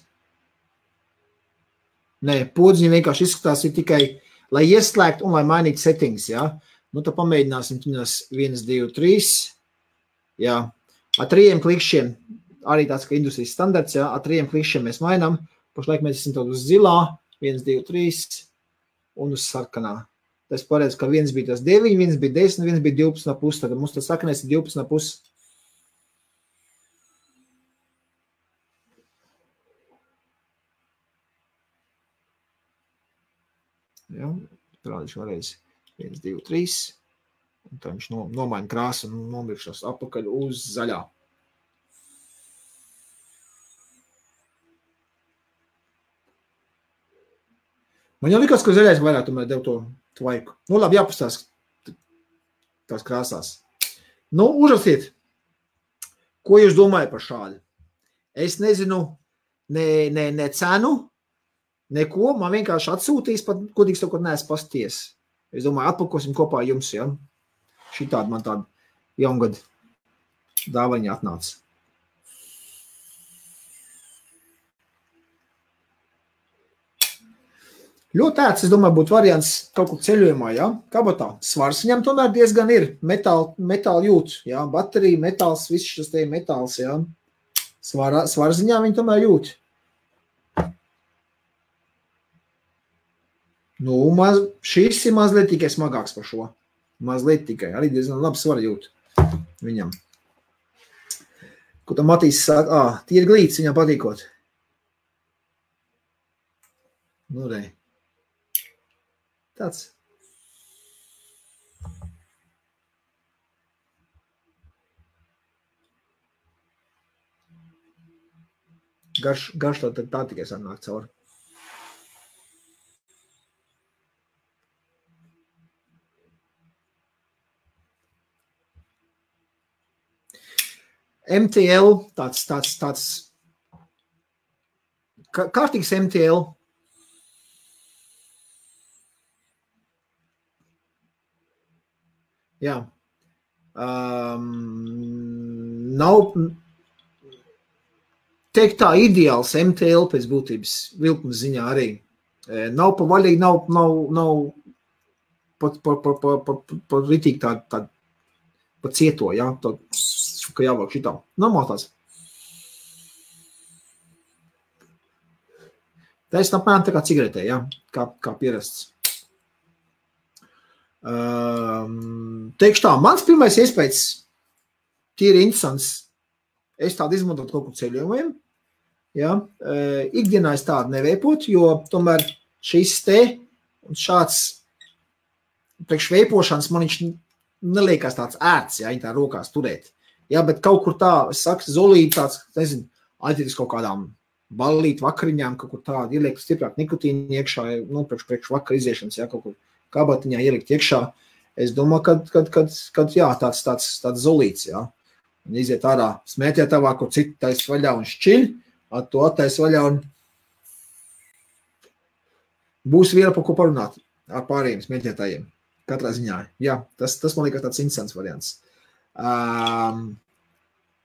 Nē, podziņa vienkārši izskatās ir tikai, lai ieslēgt un lai mainītu settings, ja? Tad pamēģināsim 1, 2, 3. Jā, ar 3 klikšķiem, arī tāds, ka industrijas standarts, jā, ar 3 klikšķiem mēs mainām. Pašlaik mēs esam uz zilā, 1, 2, 3 un uz sarkanā. Tas paredz, ka viens bija tas 9, viens bija 10, viens bija 12,5. Tad mums tas sarkanais ir 12,5. Ja, parādīšu vēlreiz. 1, 2, 3. Un tā viņš nomaina krāsu un nomirkšos apakaļ uz zaļā. Man jau likās, ka zaļais vairāk tomēr dev to tvaiku. Nu, labi, jāpastās tās krāsās. Nu, uzrakstiet, ko jūs domājat par šādu? Es nezinu ne cenu, neko, man vienkārši atsūtīs, pat kodīgs to, ko neesmu pasties. Es domāju, atpakosim kopā jums, ja? Šitādi man tāda jaungada dāvaņa atnāca. Ļoti ērts, es domāju, būtu variants kaut kur ceļojumā, ja? Kabatā. Svars viņam tomēr diezgan ir. Metāli jūt, ja? Baterija, metāls, viss šis te metāls, ja? Svarziņā viņi tomēr jūt. Nu, šis ir mazliet tikai smagāks par šo. Mazliet tikai. Arī diezgan labi svar jūt viņam. Ko tam Matīs saka? Tīri glīts viņam patīkot. Nu, re. Tāds. Garš tā tikai sanāk cauri. MTL, tāds kārtīgs MTL. Jā. Nav teikt tā ideāls MTL pēc būtības vilkuma ziņā arī. Nav pa vaļīgi, nav pa ritīgi tā pa cieto, jā, tā, ka jāvāk šitā. Normāli tāds. Tā ir apmēram tā kā cigaretē, jā, kā pierasts. Teikšu tā, mans pirmais iespējas tīri interesants. Es tādu izmantot kaut kur ceļojumiem. Ja? Ikdienā es tādu neveipot, jo tomēr šis te un šāds priekš veipošanas man viņš neliekās tāds ērts, ja, viņa tā rokās turēt. Ja, bet kaut kur tā, es saku, zolīti tāds, nezinu, aizietis kaut kādām ballīt vakariņām, kaut kur tādu ieliek stiprāk nikotīni iekšā, nu, priekš vakar iziešanas, ja, kaut kur kabatiņā ielikt iekšā. Es domāju, kad jā, tāds zolīts, ja. Un iziet ārā smēķē tavā, kur citu tais vaļā un šķiļ, to attais vaļā un būs viela par ko parunāt ar pārējiem smēķētājiem. Katrā ziņā. Jā, tas man liekas tāds interesants variants.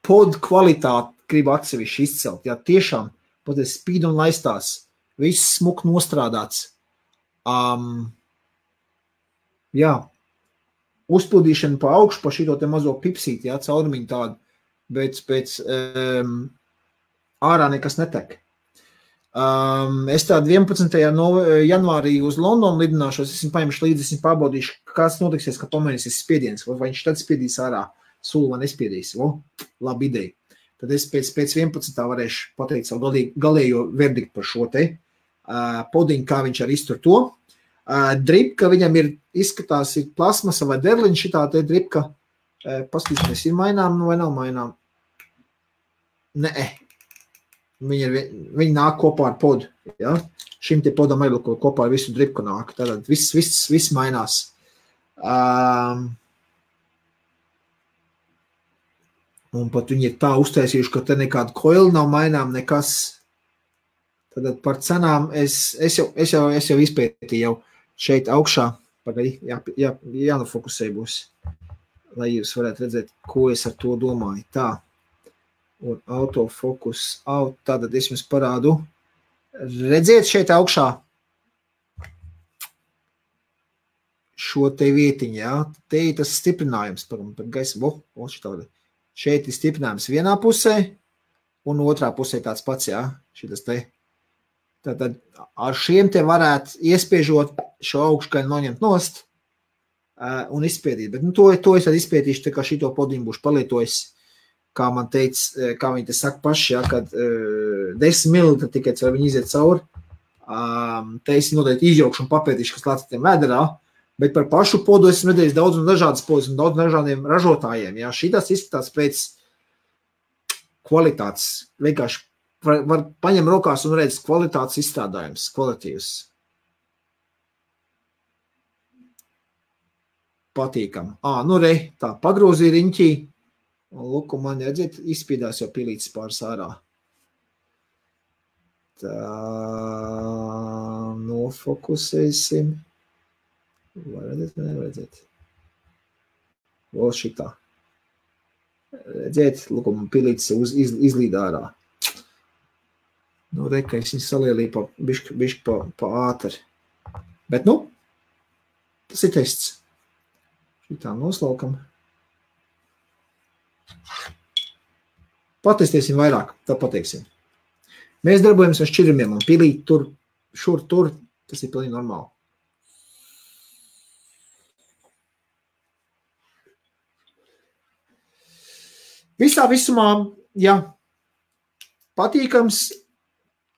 Pod kvalitāti gribu atsevišķi izcelt. Jā, tiešām, pat es spīd un laistās. Viss smuk nostrādāts. Jā, uzpildīšana pa augšu, pa šito te mazo pipsīti, jā, caurumiņu tādu, bet pēc ārā nekas netek. Es tādu 11. janvārī uz Londonu lidināšos, esmu paņemšu līdzi, esmu pārbaudīšu, kāds notiksies, ka pamainīsies spiediens, vai viņš tad spiedīs ārā sulu vai nespiedīs. Labi ideja. Tad es pēc 11. varēšu pateikt savu galējo verdiktu par šo te podiņu, kā viņš arī iztur to. Dripka viņam izskatās ir plasmasa vai derliņa, šitā te dripka, paskatīsimies, ir mainām vai nav mainām? Nē, viņi nāk kopā ar podu, ja? Šim te podam arī kopā ar visu dripku nāk, tātad viss mainās. Un pat viņi ir tā uztaisījuši, ka te nekāda koila nav mainām, nekas. Tātad par cenām es jau izpētīju jau šeit augšā, jānofokusē būs, lai jūs varētu redzēt, ko es ar to domāju. Tā, un autofokus, tātad es jums parādu. Redziet šeit augšā šo te vietiņu, jā, te ir tas stiprinājums par gaisa, šeit ir stiprinājums vienā pusē, un otrā pusē tāds pats, jā, šitas te. Tad ar šiem te varētu iespiežot šo augškaļu noņemt nost un izspiedīt. Bet to es tad izspiedīšu, tā kā šito podiņu būšu palietojis, kā man teica, kā viņi te saka paši, ja, kad 10 ml tikai, vai viņi iziet cauri, te es noteikti izjaukšu un papētīšu, kas lāc tiem vēderā, bet par pašu podu esmu redzējis daudz un dažādas podus un daudz dažādiem ražotājiem. Ja. Šitās izskatās pēc kvalitātes. Vienkārši var paņem rokās un redz kvalitātes izstrādājums, kvalitīvs. Patīkam. Nu re, tā pagrozīja riņķī. Un lūk, man redzēt, izspīdās jau pilītis pāris ārā. Tā, nofokusēsim. Vai redzēt, vai neredzēt? Vēl šitā. Redzēt, lūk, man pilītis izlīd ārā. Nu, reka, es viņu salielīju bišķi pa ātri. Bet, tas ir tests. Šitā noslaukam. Patestēsim vairāk, tad pateiksim. Mēs darbojamies ar šķirumiem un pilīt tur, tur, tas ir pilnīgi normāli. Visā visumā, jā, patīkams,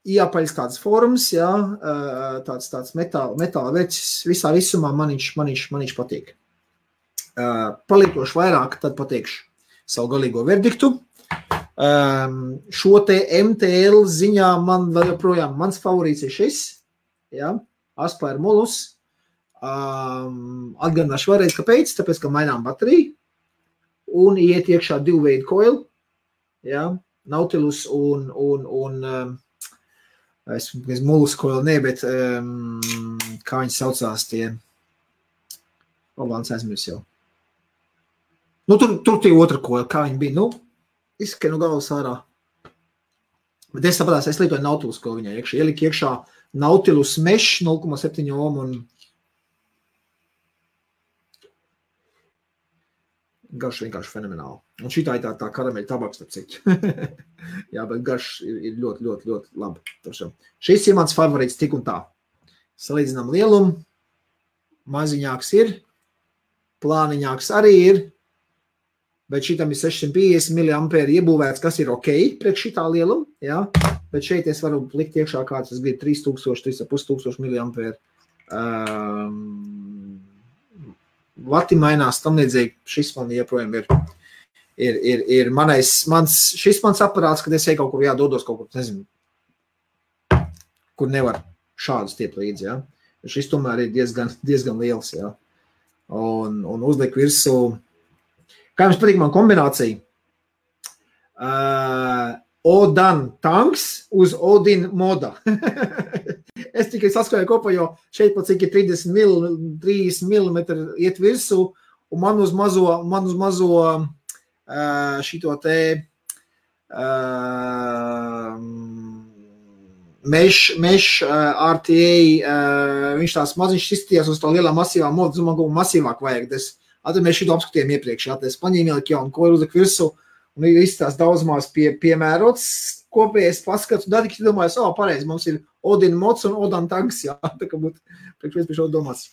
jāpaļas tāds forums, jā, tāds metāla vecis, visā visumā maniņš patīk. Palietošu vairāk, tad pateikšu savu galīgo verdiktu. Šo te MTL ziņā man vēl joprojām, mans favorīts ir šis, jā, Aspire Molus. Atgādināšu vēlreiz, kāpēc, tāpēc, ka mainām bateriju un iet iekšā 2 veidu coil, jā, Nautilus un es Molus coil bet kā viņi saucās tie, labāns aizmirs jau. Tur tie otra coil, kā viņi bija, izskan galvas ārā. Bet es sapratu, es lietoju Nautilus coil viņai iekšā, ielika iekšā Nautilus Mesh 0,7 ohm un garš vienkārši fenomenāli. Un šitā ir tā karameļa tabaks, starp citu. Jā, bet garš ir ļoti, ļoti, ļoti labi. Šis ir mans favorīts tik un tā. Salīdzinām lielumu, maziņāks ir, plāniņāks arī ir, bet šitam ir 650 mAh iebūvēts, kas ir ok priekš šitā lieluma, jā, bet šeit es varu likt iekšā kāds, es gribu 3000, 3500 mAh. Vati mainās tam līdzīgi, šis man joprojām ir šis mans aparāts, kad es eju kaut kur jādodos kaut kur, nezinu, kur nevar šādus tiet līdzi, jā. Šis tomēr ir diezgan liels, jā. Un uzliek virsū, kā jums patīk man kombinācija? Odan tanks uz Odin moda. Es tikai saskrēju kopā, jo šeit pat cik ir 30 mm iet virsū, un man uz mazo šito te mesh RTA, viņš tās maziņš izstījās uz tā lielā masīvā modu, man kaut masīvāk vajag. Mēs šito apskatījām iepriekš, es paņēmu ieliku jaunu koju uzliku virsū, un izstās daudzmās piemērots kopējais paskats, un tad tik domāju, pareizi, mums ir Odin mods un Odan tanks, jā, tā kā būtu priekš pie šo domāts.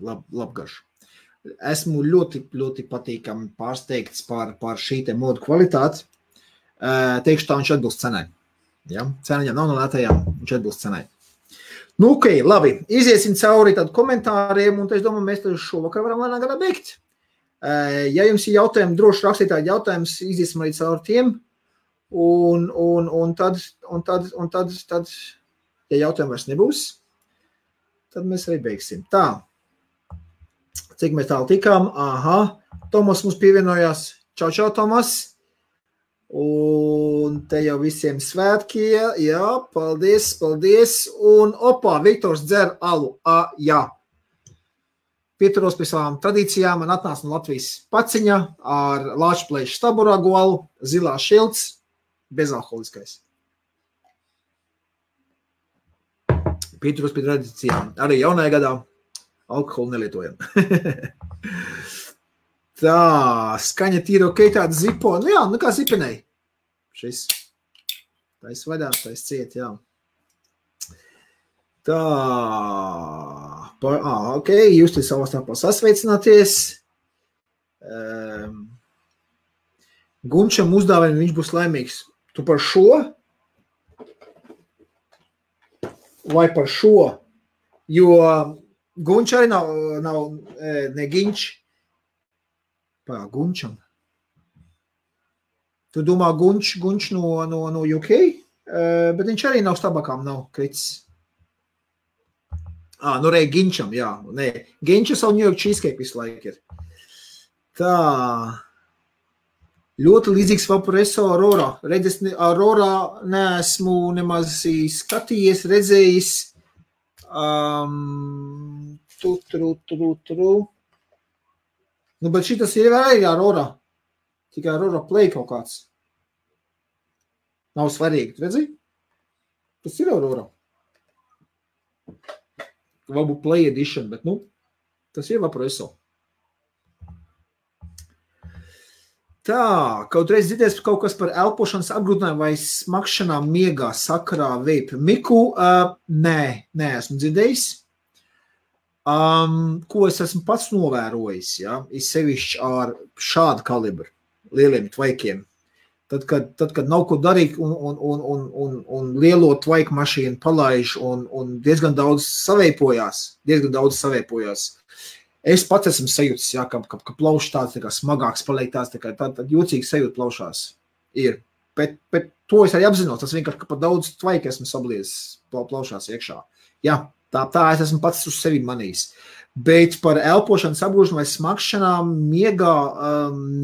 Labgarš. Esmu ļoti, ļoti patīkami pārsteigts par šī te modu kvalitāti. Teikšu tā, viņš atbilst cenai. Ja? Ceniņam nav no lētajām, viņš atbilst cenai. Ok, labi, iziesim cauri tad komentāriem, un es domāju, mēs tad šovakar varam lēnā gadā beigt. Ja jums ir jautājumi, droši rakstīt tādi jautājumus, iziesim arī cauri tiem, un tad, ja jautājumi vairs nebūs, tad mēs arī beigsim. Tā, cik mēs tālu tikām? Tomas mums pievienojās. Čau, Tomas. Un te jau visiem svētki, jā, paldies. Un Viktors dzer alu, jā. Pieturos pie savām tradīcijām, man atnāca no Latvijas paciņa ar Lāčplēšu staburagu alu, zilā šilts, bezalkoholiskais. Pieturos pie tradīcijām. Arī jaunajā gadā alkoholu nelietojam. Tā, skaņa tīra ok, tāda zipo. Nu jā, nu kā zipenei. Šis. Tais vaļā, tais ciet, jā. Tā. Ok, jūs te savā starpā sasveicināties. Gunčam uzdāvina, viņš būs laimīgs. Tu par šo? Vai par šo? Jo Gunč arī nav ne Ginč. Gunčam. Tu domā Gunč no UK? Bet viņš arī nav stabakām, nav kritis. Nu rei Ginčam, jā. Nē, Ginča savu New York cheesecake visu laiku ir. Tā. Ļoti līdzīgs Vaporeso Aurora. Redzes, Aurora neesmu nemaz skatījies, redzējis. Nu, bet šitas ir arī Aurora. Tikai Aurora Play kaut kāds. Nav svarīgi, redzi? Tas ir Aurora. Varbūt Play Edition, bet tas ir Vaporeso. Tā, kaut reiz dzirdēs kaut kas par elpošanas apgrūtinājumu vai smakšanām miegā sakarā vape. Miku, nē, esmu dzirdējis. Ko es esmu pats novērojis, ja, ir sevišķi ar šādu kalibru, lieliem tvaikiem. Tad, kad nav ko darīt un lielo tvaiku mašīnu palaiž un diezgan daudz saveipojās. Es pats esmu sajūtis, jā, ka plaušs tāds smagāks paliek tāds, tā jocīgi sajūt plaušās ir. Bet to es arī apzinos, tas vienkārši, ka par daudz tvaika esmu sabliezis plaušās iekšā. Jā, tā es esmu pats uz sevi manījis. Bet par elpošanas apgrūšanu vai smakšanām miegā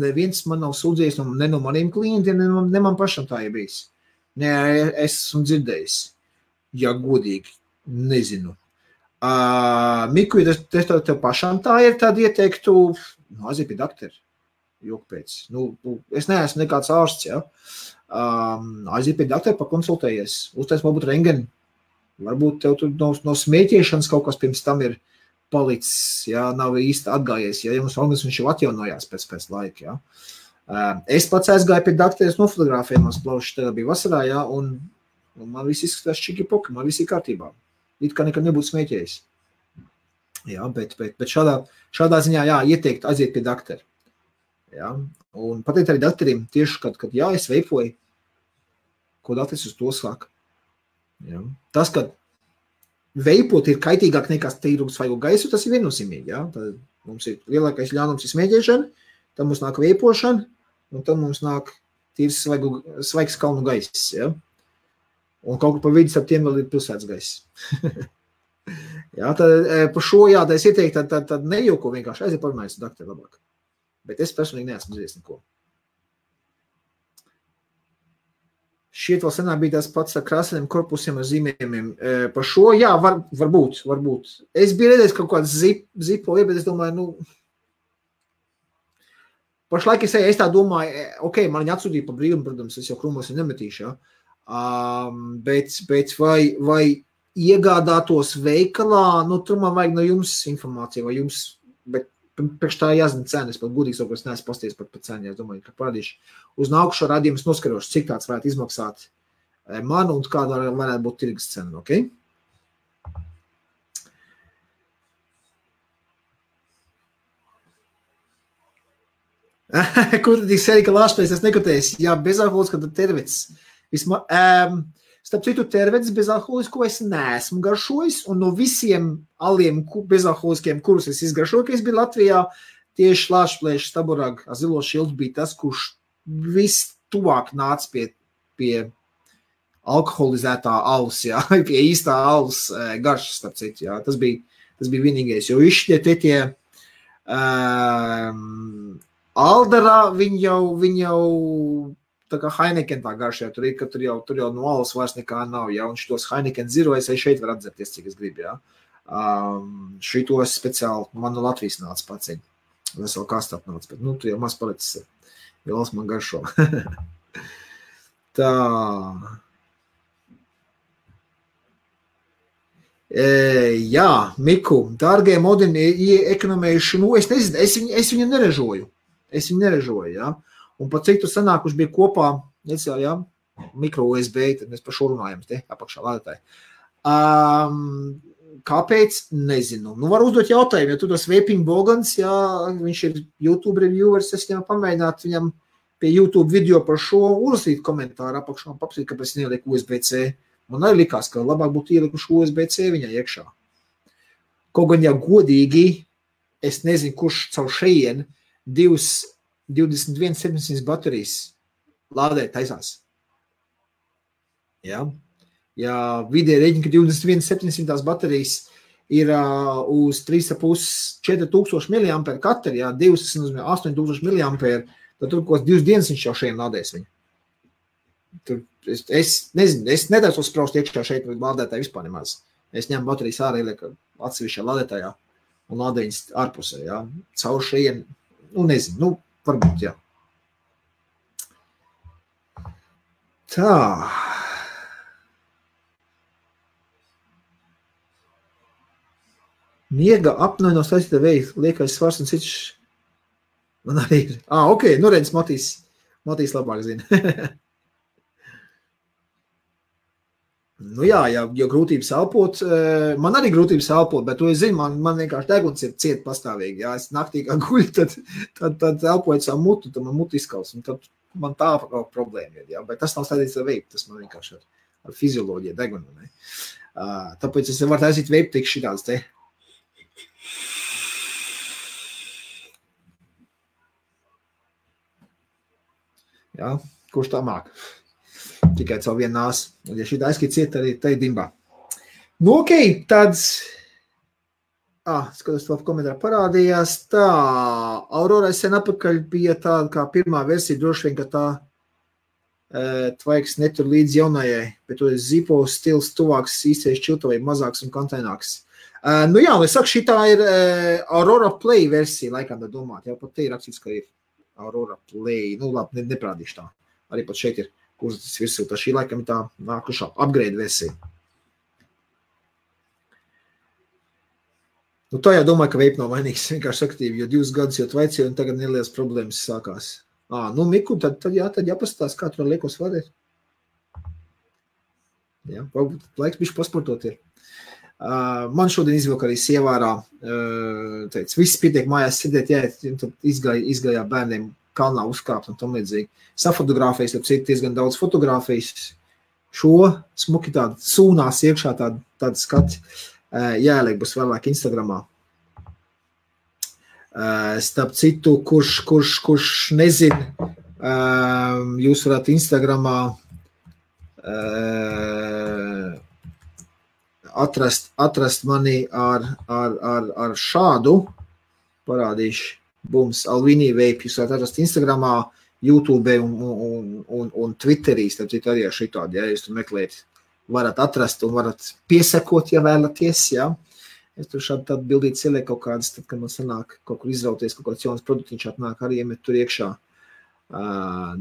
neviens man nav sūdzējis, ne no maniem klientiem, ne man pašam tā ir bijis. Nē, es esmu dzirdējis. Ja godīgi, nezinu. Miku, ja tev pašām tā ir, tad ieteiktu, aiziet pie doktora, joku pēc. Es neesmu nekāds ārsts, ja. Aiziet pie doktora, pakonsultējies, uztais varbūt rengeni. Varbūt tev tur no smēķiešanas kaut kas pirms tam ir palicis, ja, nav īsti atgājies, ja jums organisms jau atjaunojās pēc laika, ja. Es pats aizgāju pie doktora, es nofotografēju mans plaušs, tagad bija vasarā, ja, un man viss izskatās čiki-poki, man viss ir kārtībā. It kā nekad nebūtu smēķējis. Jā, bet šādā ziņā, jā, ieteikt aiziet pie doktora. Jā, un pateikt arī doktoriem tieši, kad jā, es veipoju, ko doktors uz to saka. Jā. Tas, ka veipot ir kaitīgāk nekā tīrums svaigo gaisu, tas ir viennozīmīgi, jā. Tad mums ir lielākais ļaunums ir smēķēšana, tad mums nāk veipošana, un tad mums nāk tīrs svaigs kalnu gaiss, jā. Un kaut kur pa vidi starp tiem vēl ir pilsētas gaiss. Jā, tad par šo, jā, tā es ieteiktu, tad nejauko vienkārši aiziet parunājas ar doktoru labāk. Bet es personīgi neesmu dzirdējis neko. Šiet vēl senāk bija tās pats ar krāsainiem korpusiem ar zīmējumiem. Par šo, jā, varbūt. Es biju redzējis kaut kāds zipo, bet es domāju, pašlaik es tā domāju, ok, man viņa atsūtīja pa brīvumu, protams, es jau krūmos viņu nemetīšu, jā. Bet vai iegādātos veikalā, tur man vajag no jums informāciju, vai jums, bet priekš tā jāzina cena, es pat gudīgi savu, es neesmu pasties par cenu, es domāju, ka parādīšu. Uz nākušo radījumu es noskarošu, cik tāds varētu izmaksāt man un kāda varētu būt tirgus cena, ok? Kur tad ir serika lāšpēc, es nekotējis, jā, bezalkoholis, kad tervets. Starp citu, tervets bezalkoholisku es neesmu garšojis, un no visiem aliem bezalkoholiskiem, kurus es izgaršoju, ka es biju Latvijā, tieši lāšplēša staburag zilo šildu bija tas, kurš viss tuvāk nāca pie alkoholizētā alus, jā, pie īstā alus garšas, starp citu, jā, tas bija vienīgais, jo tie Aldarā viņi jau tā kā Heineken tā garšā, tur jau no alus vairs nekā nav, ja, un šitos Heineken Zero es šeit var atzerties, cik es gribu, ja. Šitos speciāli man no Latvijas nāca paciņi, vesel kastap nāca, bet, tu jau maz palicis, vielas man garšo. Tā. Jā, Miku, dārgie modini, ekonomējuši, es nezinu, es viņu neražoju. Es viņu neražoju, ja. Un pat cik tu sanākuši bija kopā, necēl, ja, mikro USB, tad mēs par šo runājam, te apakšā lādētāji. Kāpēc? Nezinu. Nu, var uzdot jautājumu, ja tu tas Vaping Bogans, ja viņš ir YouTube reviewers, es viņam pamēģināt viņam pie YouTube video par šo uzlasīt komentāru apakšā un papsīt, kāpēc neieliek USB-C. Man arī likās, ka labāk būtu ielikuši USB-C viņai iekšā. Kaut gan, ja godīgi, es nezinu, kurš caur šeien 21.700 baterijas lādēt taisās. Ja? Ja vidēji reģina, ka 21.700 baterijas ir uz 3,5–4,000 mAh katra, ja 8,000 mAh, tad tur kaut 2 dienas viņš jau šeit lādēs viņu. Tur, es nezinu, es nedēļu spraust iekšā šeit lādētāji vispār nemaz. Es ņemu baterijas ārā, ielieku atsevišķā lādētājā un lādēju viņas ārpusē, ja. Caur šeit, nu nezinu, nu varbūt, jā. Tā. Miega apnoja no saistītā veida, liekais svars un cits. Man arī ir. Ok, nu redz, Matīs labāk zina. Nu jā, ja grūtības elpot, man arī grūtības elpot, bet to es zinu, man vienkārši deguns ir ciet pastāvīgi. Ja es naktī kā guļu, tad elpoju savu mutu, tad man mutu izkals, un tad man tā kaut problēma ir. Ja? Bet tas nav saistīts ar veipu, tas man vienkārši ar fizioloģiju degunu. Ne? Tāpēc es varu taisīt veipu tik šitāds te. Ja? Kurš tā māk? Tikai caur vienu nāsu. Un ja šī aizskīt ciet, arī te dimbā. Nu, ok, tad... skatos, to komentārā parādījās. Tā, Aurora sen apakaļ bija tāda kā pirmā versija, droši vien, ka tā tvaiks netur līdz jaunajai, bet to Zipo stils tuvāks, īstais čiltavai, mazāks un kontaināks. Nu jā, es saku, šitā ir Aurora Play versija, laikam tā domāt. Jā, pat te ir rakstīts, ka ir Aurora Play. Nu, labi, neprādīšu tā. Arī pat šeit ir kursus virsū, tā šī laikam ir tā nākušā upgrade versija. Nu, tā jau domāju, ka vape nav vainīgs, vienkārši aktīvi, jo 2 gadus jau tvaicīju un tagad nelielas problēmas sākās. Nu, Miku, tad jāpastās, kā tur liekos vadēt. Jā, varbūt laiks bišķi pasportot ir. Man šodien izvilka arī sievārā, teica, viss pietiek mājās sēdēt, jāiet, un tad izgājā bērniem kalnā uzkāpt un tam līdzīgi. Safotogrāfijas, tad citu diezgan daudz fotogrāfijas. Šo smuki tādu sūnās iekšā tādu skati jāieliek būs vēlāk Instagramā. Starp citu, kurš nezin, jūs varat Instagramā atrast mani ar šādu, parādīšu, bums, Alvini Vape, jūs varat atrast Instagramā, YouTube un Twitterī, starp citu arī ar šitādi, ja jūs tur meklējat, varat atrast un varat piesakot, ja vēlaties, ja. Es tur šādi tādu bildīt ieliek kaut kādas, tad, kad man sanāk kaut kur izrauties, kaut kāds jauns produktiņš atnāk, arī iemet tur iekšā.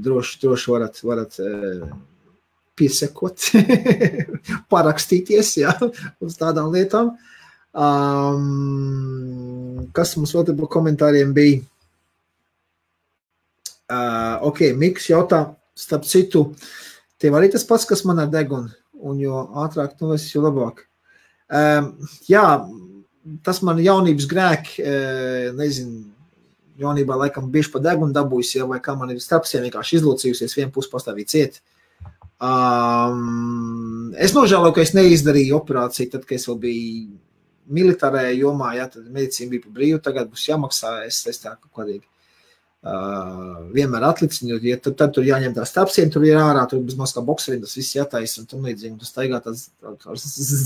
Droši varat piesakot, parakstīties, ja, uz tādām lietām. Kas mums vēl te par komentāriem bija? Ok, Miks jautā, starp citu, tev arī tas pats, kas man ar degunu, un jo ātrāk tu esi, jo labāk. Jā, tas man jaunības grēki, nezinu, jaunībā laikam bieži pa degunu dabūjis, ja, vai kā man ir starpsiem vienkārši izlocījusies, vienu pusi pastāvīt ciet. Es nožēloju, ka es neizdarīju operāciju, tad, kad es vēl biju militārajā jomā, ja, tad medicīna bija pa brīvu, tagad būs jāmaksā, es tā kaut kādīgi. Vienmēr atlicinu, ja tad tur jāņem tās tapsiem, tur ir ārā, tur bez maz kā bokseriem, tas viss jātais un tam līdzīgi, tas staigā tās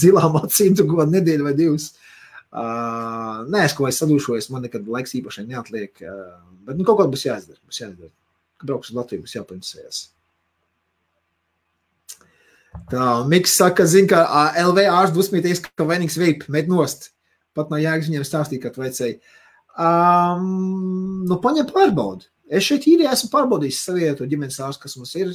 zilām acīm, tur kaut nedēļu vai 2. Nē, es kaut vai sadūšojas, man nekad laiks īpašai neatliek, bet nu kaut kā būs jāizdara. Kad brauks uz Latviju, būs jāpaņasējās. Tā, Miks saka, zin, ka LV ārsts dusmīties, ka vainīgs vape, met nost. Pat no jēgas viņiem stāstīt, kad vajadzēja. Nu, paņem pārbaudu. Es šeit īrijā esmu pārbaudījis savietu ģimenes ārstu, kas mums ir.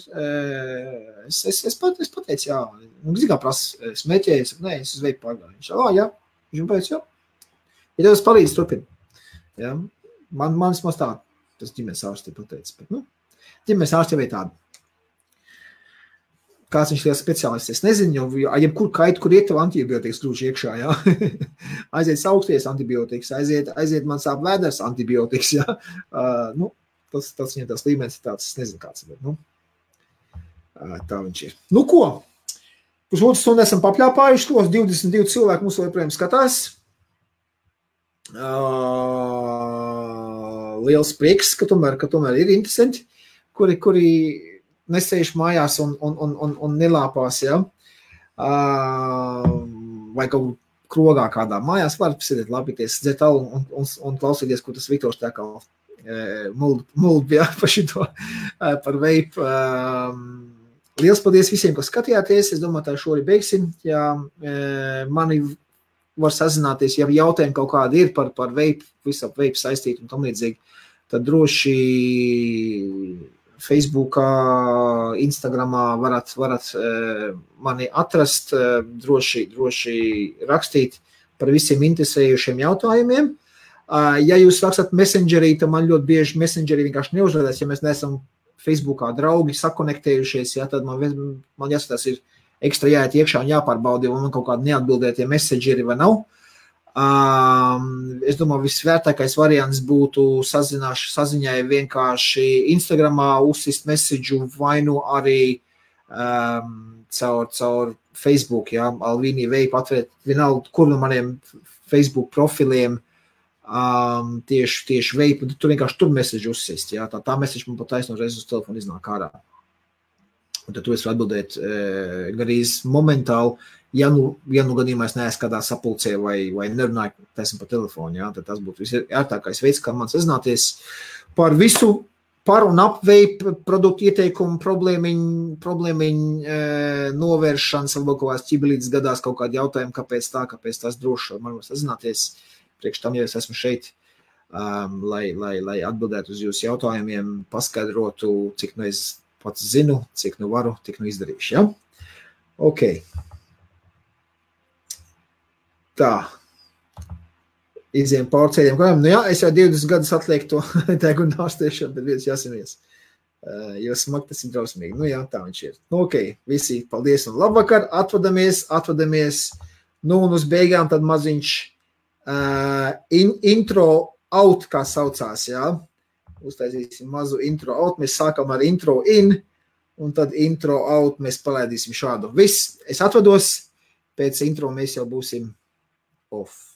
Es pateicu, jā. Un zin kā prasa smēķēju, es saku, nē, es uz vape pārgāju. Viņš, jā. Viņš man pēc, jā. Ja tev es palīdzi, turpin. Jā. Man vismaz tā. tas ģimenes ārsti pateica. Bet, nu, ģimenes ārsti jau ir tādi. Kāds viņš liels speciālists, es nezinu, jo jebkur kaitu, kur iet tev antibiotikas grūži iekšā, jā. Aiziet sauksties antibiotikas, aiziet man sāp vēders antibiotikas, jā. Nu, tas viņam tās līmenis ir tāds, es nezinu kāds, bet, nu, tā viņš ir. Nu, ko? Pusotru stundu esam papļāpājuši tos, 22 cilvēki mums joprojām skatās. Liels prieks, ka tomēr ir interesanti, kuri nesējuši mājās un nelāpās, ja? Vai kaut krogā kādā mājās var sēdēt, lapīties, dzert alu un klausīties, ko tas Viktors tā kā muld ja, par šito, par veipu. Liels paldies visiem, kas skatījāties. Es domāju, tā šori beigsim. Ja mani var sazināties, ja jautājumi kaut kādi ir par veipu, visu ap veipu saistīt un tam līdzīgi, tad droši Facebookā, Instagramā varat mani atrast, droši rakstīt par visiem interesējušiem jautājumiem. Ja jūs rakstat Messengerī, tad man ļoti bieži Messengerī vienkārši neuzrādās, ja mēs neesam Facebookā draugi sakonektējušies, ja, tad man jāskatās ir ekstra jāiet iekšā un jāpārbauda, vai man kaut kādi neatbildētie messengeri vai nav. Es domāju, visvērtākais variants būtu saziņai vienkārši Instagramā uzsist messageu vai nu arī caur Facebook, ja, Alvīnī Veipa atvērt vienalga, kur no maniem Facebook profiliem tieši Veipa, tur vienkārši tur messageu uzsist, ja, tā message man pat taisno reiz uz telefonu iznāk ārā. Un tad tu esi atbildēt garīz momentāli, ja nu gadījumā es neesmu kādā sapulcē vai nerunāju, taisam pa telefonu, ja, tad tas būtu visērtākais veids, kā man sazināties par visu par un ap veipu produktu ieteikumu problēmiņu novēršanas, varbūt kaut kāds ķibelītes gadās kaut kādi jautājumi, kāpēc tas droši man var sazināties. Priekš tam, ja es esmu šeit, lai atbildētu uz jūsu jautājumiem, paskaidrotu, cik nu es pats zinu, cik nu varu, tik nu izdarīšu, ja? Ok. Tā. Iziem pārceļiem kājām. Nu jā, es jau 20 gadus atlieku to tēgu un ārstēšanu, bet viens jāsimies. Jo smagi tas ir drausmīgi. Nu jā, tā viņš ir. Nu ok, visi, paldies un labvakar. Atvadamies. Nu un uz beigām tad maziņš intro out, kā saucās, jā. Uztaisīsim mazu intro out. Mēs sākam ar intro in, un tad intro out mēs palaidīsim šādu. Viss, es atvados, pēc intro mēs jau būsim off.